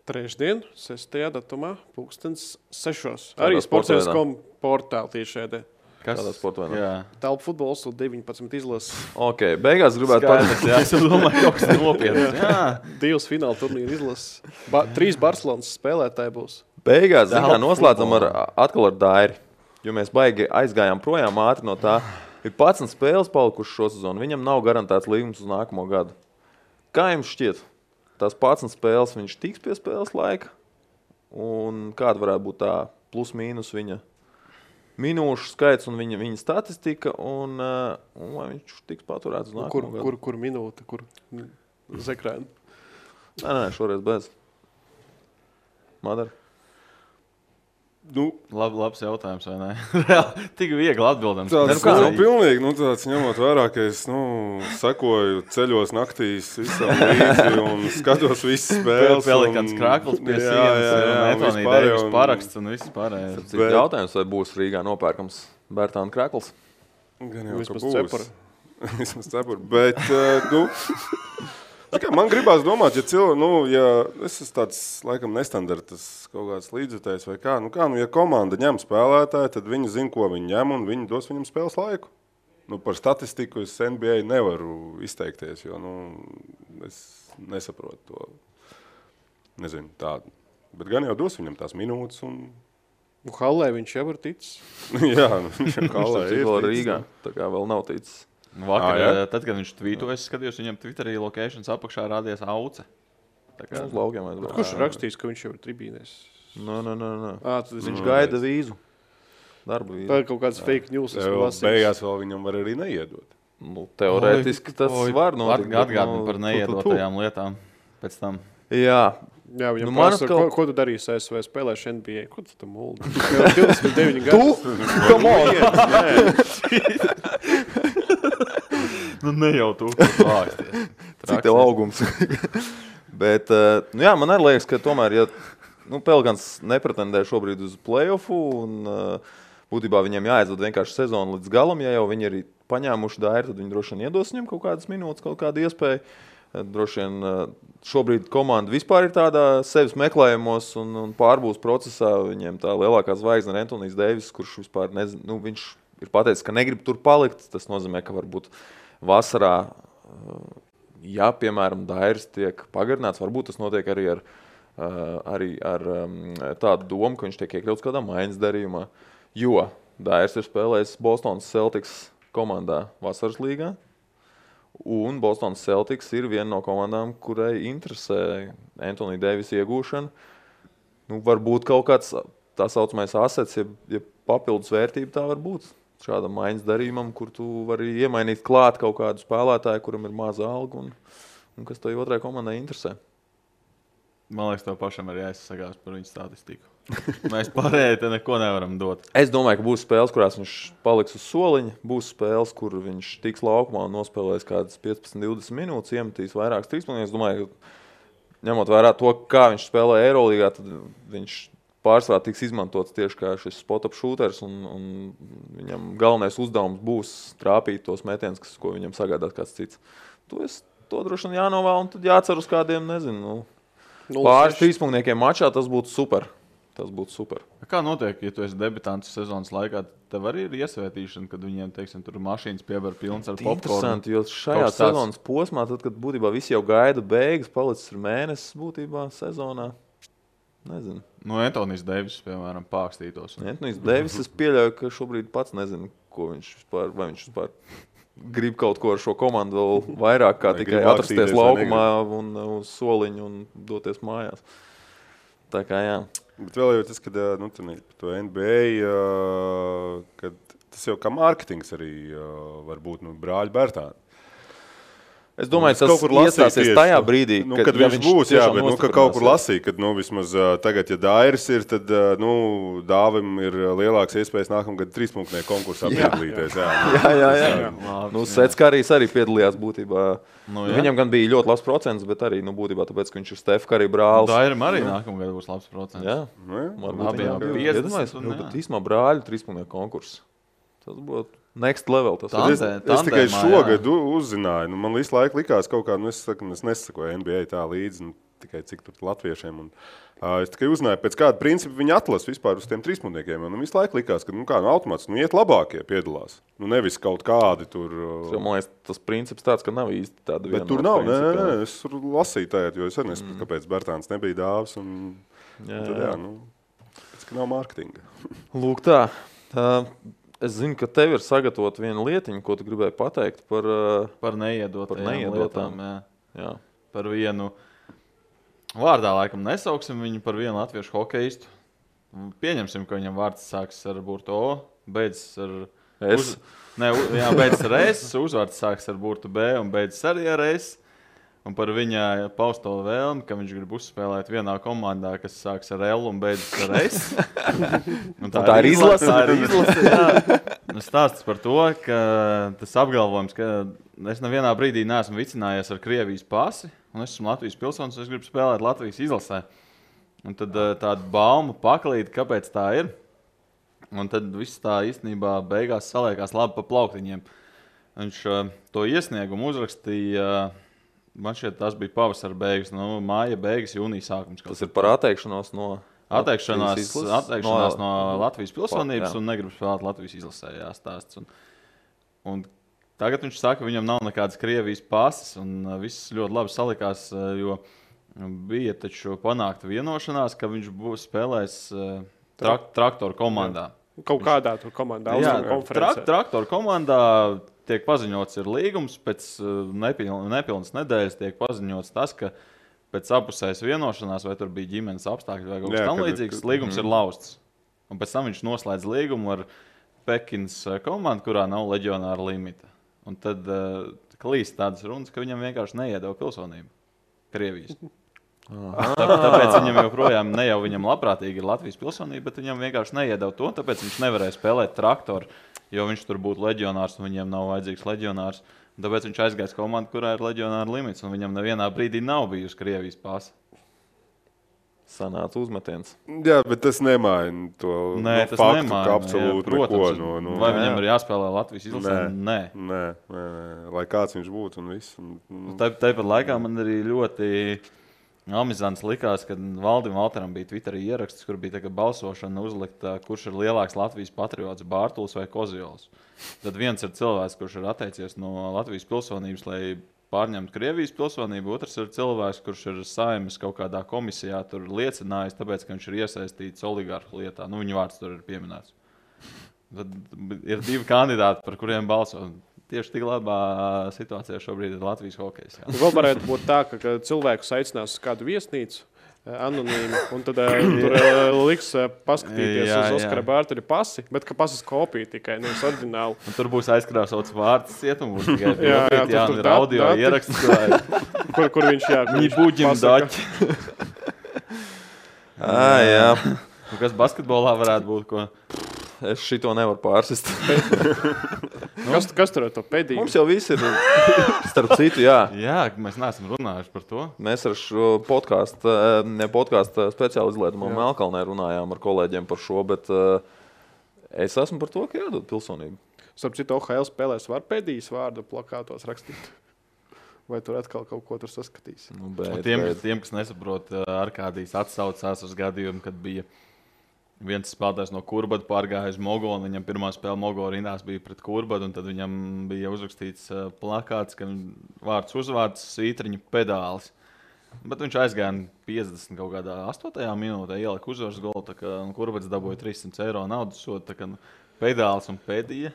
Trešdien, 6. datumā, 6:00. Arī Sportscentrs.com portāli tieši šeit. Kādā sportvainā? Telpu futbols un 19 izlases. Ok, beigās gribētu pateikt. Jā, es domāju, kaut kas nopietnas. 2 fināla turnīra izlases. 3 Barcelonas spēlētāji būs. Beigās noslēdzam atkal ar Dairi, jo mēs baigi aizgājām projām ātri no tā. Ir 11 spēles palikušas šo sezonu, viņam nav garantēts līgums uz nākamo gadu. Kā jums šķiet? Tās 11 spēles viņš tiks pie spēles laika? Un kāda varētu būt tā plus mīnus viņa minūšu skaits un viņa statistika, un vai viņš tiks paturēts uz nākamo gadu? Kur minūte, kur zekrēna? Nē, šoreiz bez. Madara? Labs jautājums, vai ne? Tik viegli atbildams. Pilnīgi, tāds ņemot vērā, ka es sekoju ceļos naktīs visam līdzi un skatos visas spēles. Vēl kāds krākls pie sienas, un Etonija Deivis paraksts un viss pārējais. Jautājums, vai būs Rīgā nopērkams Bērtāna krākls? Gan jau, ka būs. Vismaz cepuri. Bet, man gribās domāt, ja es esmu tāds, laikam, nestandartas kaut kāds līdzjutējs vai kā, ja komanda ņem spēlētāju, tad viņi zina, ko viņi ņem, un viņi dos viņam spēles laiku. Par statistiku es NBA nevaru izteikties, jo, es nesaprotu to, nezinu, tādu. Bet gan jau dos viņam tās minūtes un... Hallē viņš jau ir ticis. Jā, Hallē ir ticis. Rīgā, tā kā vēl nav ticis. Vakar, tad, kad viņš tvītoja, es skatījos, viņam Twitterī locations apakšā rādījās Auce. Uz laukiem aizbrauc. Kurš rakstīs, ka viņš jau ir tribīnēs? Nē. Viņš gaida vīzu. Darba vīzu. Tā ir kaut kāds fake news. Beigās vēl viņam var arī neiedot. Teorētiski tas var notikt. Atgādini par neiedotajām lietām pēc tam. Jā. Jā, viņam prasa, ko tu darīsi ASV spēlēši NBA? Ko tu tam muldi? 29 gadu. Tu? Come on! Ne jau tu vāksties. Cik tev augums. Bet, man arī liekas, ka tomēr, ja Pelikans nepretendē šobrīd uz play-offu, un būtībā viņiem jāaizved vienkārši sezonu līdz galam, ja jau viņi ir paņēmuši Dairi, tad viņi droši vien iedos viņam kaut kādas minūtes, kaut kādu iespēju. Droši vien šobrīd komanda vispār ir tādā sevis meklējumos un pārbūs procesā. Viņiem tā lielākā zvaigzne ir Antonijs Deivis, kurš vispār nezinu, viņš ir pateicis, ka negrib tur palikt. Tas nozīmē, ka varbūt vasarā, ja, piemēram, Dairis tiek pagarināts, varbūt tas notiek arī ar tādu domu, ka viņš tiek iekļauts kādā maiņas darījumā. Jo Dairis ir spēlējis Bostonas Celtics komandā vasaras līgā. Un Bostonas Celtics ir viena no komandām, kurai interesē Antonija Deivisa iegūšana. Varbūt kaut kāds tā saucamais asets, ja papildus vērtība tā var būt. šādam maiņas darījumam, kur tu vari iemainīt klāt kaut kādu spēlētāju, kuram ir maza alga un kas to otrai komandai interesē. Man liekas, tev pašam arī jāizsakās par viņu statistiku. Mēs pārējai te neko nevaram dot. Es domāju, ka būs spēles, kurās viņš paliks uz soliņa. Būs spēles, kur viņš tiks laukumā un nospēlēs kādas 15-20 minūtes, iemetīs vairākas trīspunktus. Es domāju, ka ņemot vērā to, kā viņš spēlē Eirolīgā, tad viņš pārsvarā tiks izmantots tieši kā šis spot-up shooters, un viņam galvenais uzdevums būs trāpīt tos metienus, ko viņam sagādās kāds cits. To droši vien jānovēl, un tad jācer uz kādiem, nezinu, pāris trīspunktniekiem mačā, tas būtu super. Kā notiek, ja tu esi debitants sezonas laikā, tev arī ir iesvētīšana, kad viņiem, teiksim, tur mašīnas piebar pilns ar popkornu? Interesanti, jo šajā sezonas posmā, tad, kad būtībā visi jau gaida beigas, palicis ir mēnesis būtībā sezonā. Nezinu. Antonijs Deivis, piemēram, pākstītos. Antonijs Deivis, es pieļauju, ka šobrīd pats nezinu, ko viņš vispār grib kaut ko ar šo komandu vēl vairāk, kā tikai atrasties laukumā un uz soliņu un doties mājās. Tā kā jā. Bet vēl jau tas, kad par to NBA, kad tas jau kā mārketings arī var būt brāļi Bērtāni. Es domāju, tas iestāsies tajā brīdī, kad viņš būs, jā, bet ka kaut kur lasīja, kad vismaz tagad, ja Dairis ir, tad Dāvim ir lielāks iespējas nākamgad trīspunktnieku konkursā piedalīties. Jā. Seckārijs arī piedalījās būtībā. Viņam gan bija ļoti labs procents, bet arī būtībā tāpēc, ka viņš ir Stef Curry brālis. Dairim arī nākamgad būs labs procents. Jā. Abiem 50. Bet īstumā brāļu trīspunktnieku konkurss. Tas būtu next level. Es tikai šogad uzzināju. Man visu laiku likās kaut kā, es nesakoju NBA tā līdzi, tikai cik tur latviešiem. Es tikai uzzināju, pēc kāda principa viņi atlas vispār uz tiem trīspunktniekiem. Man visu laiku likās, ka automāts iet labākie piedalās. Nevis kaut kādi tur. Man liekas, tas princips tāds, ka nav īsti tāda viena. Bet tur nav, nē, es tur lasīju tajā, jo es arī nesapratu, kāpēc Bērtāns nebija Dāvs. Pēc, ka nav mārketinga. Lūk tā. Es zinu, ka tev ir sagatavot viena lietiņa, ko tu gribēji pateikt par neiedotām. Jā. Par vienu vārdā laikam nesauksim viņu par vienu latviešu hokeistu. Pieņemsim, ka viņam vārds sāks ar burtu O, beidzas ar S. Beidzas ar S, uzvārds sāks ar burtu B un beidzas arī ar S. Un par viņa pausto vēlmi, ka viņš grib uzspēlēt vienā komandā, kas sāks ar L un beidzas ar S. Tā ir izlase. Stāsts par to, ka tas apgalvojums, ka es nevienā brīdī neesmu vicinājies ar Krievijas pasi, un es esmu Latvijas pilsonis, un es gribu spēlēt Latvijas izlasē. Un tad tāda bauma paklīda, kāpēc tā ir. Un tad viss tā īstenībā beigās saliekās labi pa plauktiņiem. Viņš to iesniegumu uzrakstīja. Man šķiet, tas bija pavasara beigas, māja beigas, jūnija sākums. Tas ir par atteikšanos no Latvijas pilsonības un negrib spēlēt Latvijas izlasē, jāstāsts. Un tagad viņš saka, ka viņam nav nekādas Krievijas pases, un viss ļoti labi salikās, jo bija taču panākta vienošanās, ka viņš būs spēlējis traktoru komandā. Kaut kādā tur komandā, konferencē. Traktoru komandā tiek paziņots ir līgums, pēc nepilnas nedēļas tiek paziņots tas, ka pēc apusējas vienošanās, vai tur bija ģimenes apstākļi vai kaut kas tam līdzīgs, līgums ir lausts. Un pēc tam viņš noslēdz līgumu ar Pekinas komandu, kurā nav leģionāra limita. Un tad klīst tādas runas, ka viņam vienkārši neiedeva pilsonību Krievijas. Tāpēc viņam joprojām ne jau viņam labprātīgi ir Latvijas pilsonība, bet viņam vienkārši neiedeva to, tāpēc viņš nevarēja spēlēt traktoru, jo viņš tur būtu leģionārs un viņiem nav vajadzīgs leģionārs. Tāpēc viņš aizgājis komandu, kurā ir leģionāra limits, un viņam nevienā brīdī nav bijusi Krievijas pasa. Sanāca uzmetiens. Jā, bet tas nemaina to faktu, ka absolūti protams, neko. Vai viņam ir jāspēlē Latvijas izlasē? Nē. Lai kāds viņš būtu un viss. Tāpat laikā man arī ļoti amizants likās, kad Valdim Valteram bija Twitterī ieraksts, kur bija balsošana uzlikt, kurš ir lielāks Latvijas patriots, Bārtuls vai Koziols. Tad viens ir cilvēks, kurš ir atteicies no Latvijas pilsonības, lai pārņemtu Krievijas pilsonību, otrs ir cilvēks, kurš ir Saeimas kaut kādā komisijā tur liecinājis, tāpēc, ka viņš ir iesaistīts oligarhu lietā. Viņa vārds tur ir pieminēts. Tad ir divi kandidāti, par kuriem balso. Tieši tik labā situācijā šobrīd ir Latvijas hokejs. Vēl varētu būt tā, ka cilvēkus aicinās uz kādu viesnīcu, anonīmi. Un tad tur liks paskatīties uz Oskara Bārtaļa pasi, bet ka pasas kopija tikai, nevis oriģināli. Un tur būs aizkrāsots vārds cietumu, būs tikai tur audio ieraksts. Kur viņš buģim daķi. Jā. Kas basketbolā varētu būt, ko? Es šito nevaru pārsist. Kas tur ar to pēdīju? Mums jau viss ir, starp citu, jā. Jā, mēs neesam runājuši par to. Mēs ar šo podkāstu speciāli izlietumu Melkalnē runājām ar kolēģiem par šo, bet es esmu par to, ka jādod pilsonību. Starp citu, OHL spēlēs var pēdījis vārdu plakātos rakstīt? Vai tur atkal kaut ko tur saskatīs? Tiem, kas nesaprot, Arkādijs atsaucās uz gadījumu, kad bija viens spēlētājs no Kurbada pārgāja uz Mogolu, un viņam pirmā spēle Mogolu rindās bija pret Kurbadu, un tad viņam bija uzrakstīts plakāts, ka vārds uzvārds svītriņu pedālis. Bet viņš aizgāja 50 kaut kādā 8. minūtē, ielika uzvaras golu, tā kā Kurbads dabūja 300 eiro naudas sodu, tā kā pedālis un pēdīja.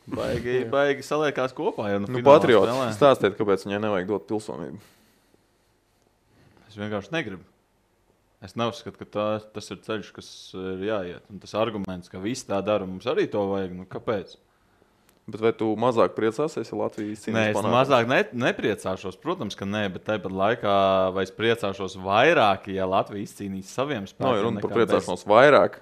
Baigi saliekās kopā. Ja Patriots, stāstiet, kāpēc viņai nevajag dot pilsonību. Es vienkārši negribu. Es neuzskatu, ka tas ir ceļš, kas ir jāiet. Un tas arguments, ka visi tā dara, mums arī to vajag. Nu, kāpēc? Bet vai tu mazāk priecāsies, ja Latvija izcīnīs panākumus? Nē, es mazāk nepriecāšos. Protams, ka nē, bet tāpat laikā vai es priecāšos vairāk, ja Latvija izcīnīs saviem spēkiem. Nav runa par priecāšanos vairāk.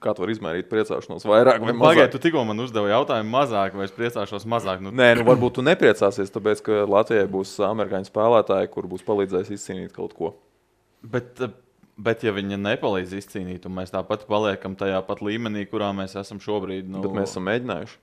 Kā tu vari izmērīt priecāšanos vairāk vai mazāk? Pagaid, tu tikko man uzdevi jautājumu mazāk, vai es priecāšos mazāk? Nē, varbūt tu nepriecāsies, tāpēc, ka Latvijai būs amerikāņu spēlētāji, kur būs palīdzējis izcīnīt kaut ko. Bet ja viņa nepalīdz izcīnīt, un mēs tāpat paliekam tajā pat līmenī, kurā mēs esam šobrīd. Bet mēs esam mēģinājuši.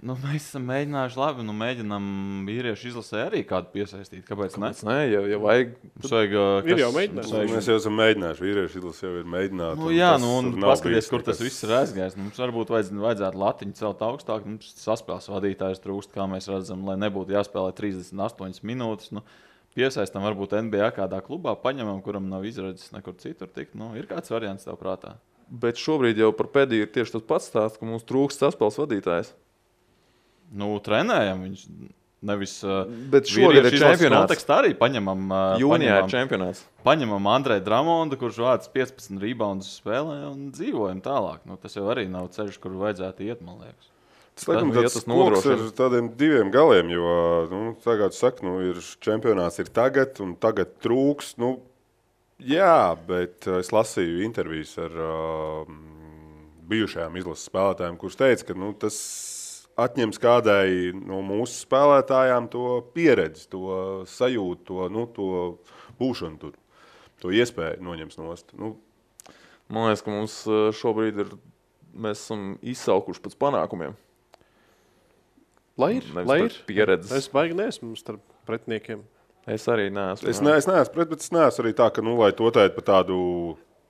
Mēs esam mēģinājuši labi, mēģinām vīriešu izlasē arī kādu piesaistīt. Kāpēc ne? Nē, ja vajag. Ir jau mēģinājuši. Mēs jau esam mēģinājuši, vīriešu izlasē jau ir mēģināti. Un paskaties, kur tas viss ir aizgājis. Mums varbūt vajadzētu latiņu celt augstāk, mums saspēles vadītājs trūkst, kā mēs redzam, lai nebūtu jāspēlē 38 minūtes. Piesaistam varbūt NBA kādā klubā, paņemam, kuram nav izredzes nekur citur tikt. Ir kāds variants tev prātā? Bet šobrīd jau par pēdīju ir tieši tas pats stāsts, ka mums trūkst saspēles vadītājs. Trenējam viņš nevis. Bet šogad ir čempionāts. Kontekstā arī paņemam. Jūnijā ir čempionāts. Paņemam Andreju Dramondu, kurš vāc 15 reboundus spēlē un dzīvojam tālāk. Tas jau arī nav ceļš, kur vajadzētu iet, man liekas. Tas laikam tāds koks ar tādiem diviem galiem, jo, tagad saka, ir čempionāts ir tagad, un tagad trūks. Jā, bet es lasīju intervijas ar bijušajām izlases spēlētājiem, kurš teica, ka tas atņems kādai no mūsu spēlētājām to pieredzi, to sajūtu, to būšanu tur, to iespēju noņems nost. Man liekas, ka mums šobrīd mēs esam izsaukuši pēc panākumiem. Lai ir pieredzes. Es baigi neesmu starp pretiniekiem. Es arī neesmu. Es neesmu pret, bet es neesmu arī tā, ka, lai to teikt par tādu...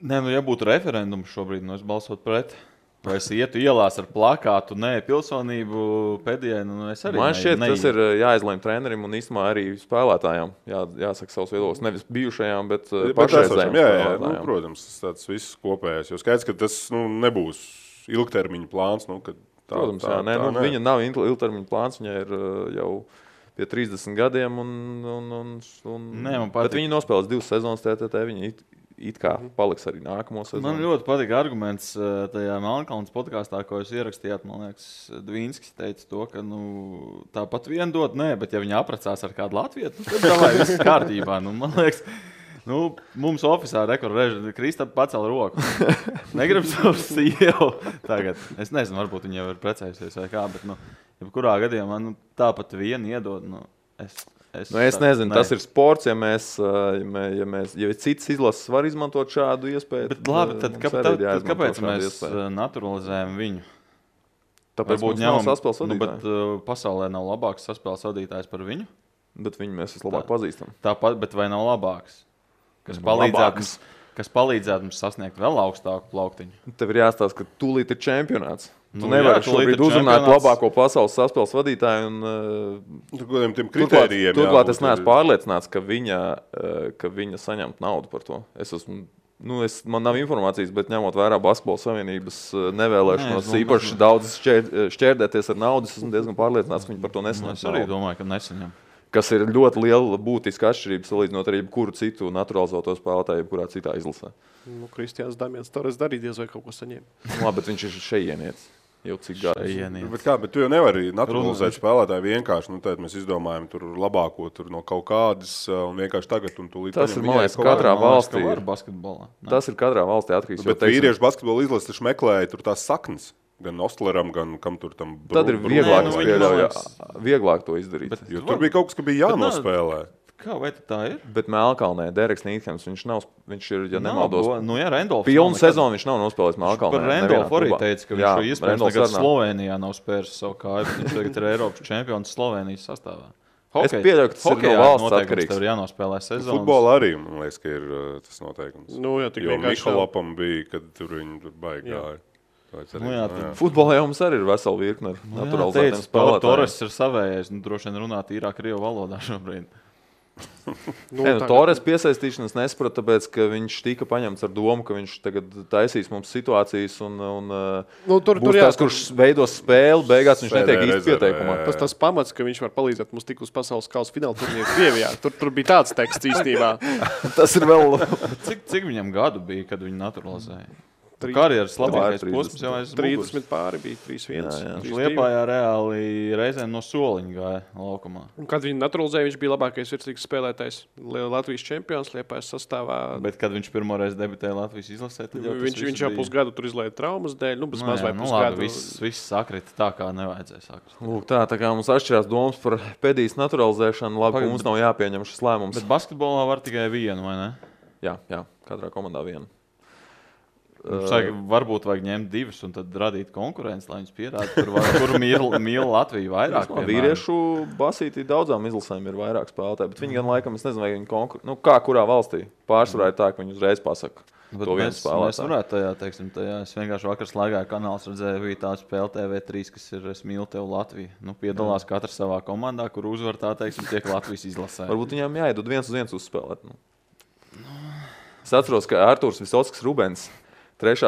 Nē, ja būtu referendums šobrīd, es balsot pret. Vai es ietu ielās ar plakātu, nē, pilsonību pēdējai, es arī Man šķiet, tas ir jāizlēm trenerim un īstenībā arī spēlētājām. Jāsaka savus viedokļus. Nevis bijušajām, bet pašreizējām spēlētājām. Protams, tas viss kopējais. Jo skaidrs, ka tas nebūs ilgtermiņa plāns, kad Protams, viņa nav ilgtermiņa plāns, viņa ir jau pie 30 gadiem, bet viņa nospēlēs 2 sezonas TTT, viņa it kā paliks arī nākamo sezonu. Man ļoti patīk arguments tajā Melnkalnes podkāstā, ko jūs ierakstījāt, man liekas, Dvīnskis teica to, ka tāpat vien dot, bet ja viņa aprecās ar kādu latvietu, tad davai viss kārtībā, man liekas. Mums oficiālā rekorda Kristap pacēla roku. Negribu savu sievu tagad. Es nezinu, varbūt viņa jau ir precējusies vai kā, bet jebkurā gadījumā tāpat vienu iedod. Es nezinu, tas ir sports, ja cits izlases var izmantot šādu iespēju. Bet labi, tad kāpēc mēs naturalizējam viņu? Tāpēc mums nav saspēles vadītāji. Bet pasaulē nav labāks saspēles vadītājs par viņu? Bet viņu mēs vislabāk pazīstam. Tāpat, bet vai nav labāks? Kas palīdzētu mums sasniegt vēl augstāku plauktiņu. Tev ir jāstāsta, ka tūlīt ir čempionāts. Tu nevari šobrīd uzrunāt labāko pasaules saspēles vadītāju. Turklāt es neesmu pārliecināts, ka viņa saņemt naudu par to. Man nav informācijas, bet ņemot vērā Basketbola savienības nevēlēšanos īpaši daudz šķērdēties ar naudu, esmu diezgan pārliecināts, ka viņi par to nesaņem. Es arī domāju, ka nesaņem. kas ir ļoti liela būtiska atšķirība salīdzinot ar jebkuru citu naturalizēto spēlētāju, jebkurā citā izlasē. Kristiāns Damians Torres darīja diez vai kaut ko saņēma. Labi, bet viņš ir šeienietis. Jau cik gadu. Bet tu jau nevari naturalizēt spēlētāju vienkārši. Tad mēs izdomājam tur labāko tur no kaut kādas un vienkārši tagad un tūlīt. Tas ir, man liekas, katrā valstī ir basketbolā. Tas ir katrā valstī atkarīgs. Bet vīriešu basketbola izlases taču meklēja tur tās saknes. Gan Ostleram, gan kam tur tam. Tad ir vieglāk to izdarīt. Jo tur bija kaut kas, ka bija jānospēlē. Kā, vai tā ir? Bet Melkalnē Dereks Nīthams, viņš ir, ja nemaldos, Rendolfs. Pilnu sezonu viņš nav nospēlējis Melkalnē. Par Rendolfu arī teica, ka viņš šo iespējams tagad Slovenijā nav spēris savu kāju, bet viņš tagad ir Eiropas čempions Slovenijas sastāvā. Es pieļauju, ka tas ir no valsts atkarīgs. Tev ir jānospēlē sezonas. Futbola arī, man liekas, ka ir tas noteikums. Jā, jo Mihalopam bija, kad tur viņi tur baigi gāja. Futbolā jau mums arī ir vesela virkne ar naturalizētiem spēlētājiem. Torres ir savējais, droši vien runā tīrā krievu valodā šobrīd. Torres piesaistīšanas nesaprata, tāpēc, ka viņš tika paņemts ar domu, ka viņš tagad taisīs mums situācijas un būs tās, kurš veidos spēli, beigās viņš netiek īsti pieteikumā. Tas pamats, ka viņš var palīdzēt mums tik uz pasaules kausa fināla turnīru Krievijā. Tur bija tāds teksts īstenībā. Tas ir vēl... Cik viņam gadu bija, kad viņi naturalizēja? Karjeras labākais posms jau aiz 30 pāri bija 3-1. Liepājā reāli reizēm no soliņa gāja laukumā. Un kad viņi naturalizēja, viņš bija labākais virslīgas spēlētājs. Latvijas čempions Liepājas sastāvā. Bet kad viņš pirmoreiz debitēja Latvijas izlasē, tad jau viņš jau pusgadu tur izlaida traumas dēļ. Maz vai pusgadu. Viss sakrita tā, kā nevajadzēja sakrita. Lūk, tā kā mums atšķirās domas par pēdīs naturalizēšanu, labi, ka mums nav jāpieņem šis lēmums. Bet basketbolā var tikai vienu, vai ne? Jā, katrā komandā vienu. Varbūt vajag ņemt divus un tad radīt konkurenci, lai viņus pierāda, kur mīl Latviju vairāk. Vīriešu basītī daudzām izlasēm ir vairāk spēlētāji, bet viņi gan laikam, es nezinu, vai viņi konkurē, kā kurā valstī pārsvarā ir tā, ka viņi uzreiz pasaka to vienu spēlētāju. Mēs varētu tajā, es vienkārši vakar slēgāju kanāls, redzēju, bija tā spēle TV3, kas ir Es mīlu tev Latviju. Piedalās katrs savā komandā, kur uzvar tā, tiek Latvijas izlasē. Varbūt viņām jāiedod 1-1 uzspēlēt. Es atceros, ka Artūrs Visockis Rubens 3.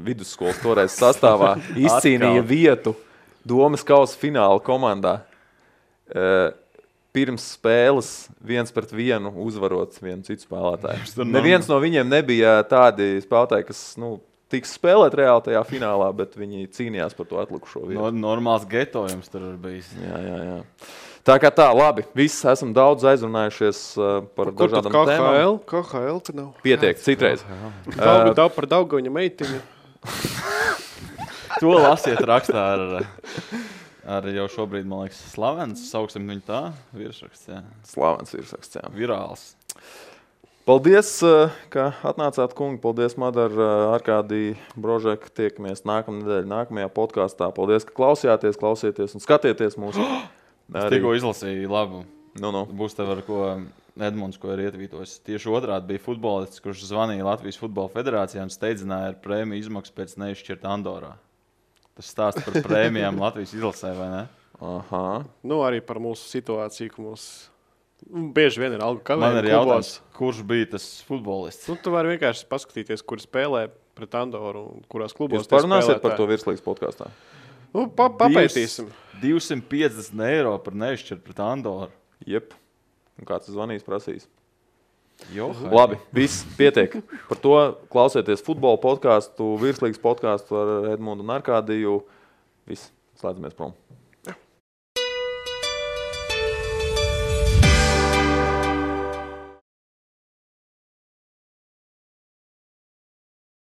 vidusskolas toreiz sastāvā izcīnīja vietu Domas kausa fināla komandā. Pirms spēles 1-1 uzvarot vienu citu spēlētāju. Neviens no viņiem nebija tādi spēlētāji, kas tiks spēlēt reāli tajā finālā, bet viņi cīnījās par to atlikušo vietu. Normāls getojums tur ir bijis. Jā. Tā kā tā, labi, visi esam daudz aizrunājušies par dažādām tēmām. KHL te nav. Pietiek, citreiz. Par Daugaviņa meitiņu. To lasiet rakstā ar jau šobrīd, man liekas, slavens, sauksim viņu tā, virsraksts, jā. Slavens virsraksts, jā. Virāls. Paldies, ka atnācāt, kungi. Paldies, Madar, Arkādī, Brožek. Tiekamies nākamnedēļ, nākamajā podkāstā. Paldies, ka klausieties un skatieties mūsu. Es tikko izlasīju labu. No. Būs tev ar ko Edmunds, ko ir ietvītojis. Tieši otrādi bija futbolists, kurš zvanīja Latvijas futbola federācijā un steidzināja ar prēmiju izmaksu pēc neizšķirta Andorā. Tas stāsta par prēmijām Latvijas izlasē, vai ne? Aha. Arī par mūsu situāciju, ka mums bieži vien ir algu kavējumi. Man ir jautājums, kurš bija tas futbolists? Tu vari vienkārši paskatīties, kur spēlē pret Andoru un kurās klubos. Jūs parunāsiet par to virslīgas podkāstā? Papētīsim. 250 eiro par neizšķirt pret Andoru. Jep. Un kāds zvanīs prasīs? Labi, viss pietiek. Par to klausieties futbola podkāstu, virslīgas podkāstu ar Edmundu un Arkādiju. Viss, slēdzamies prom.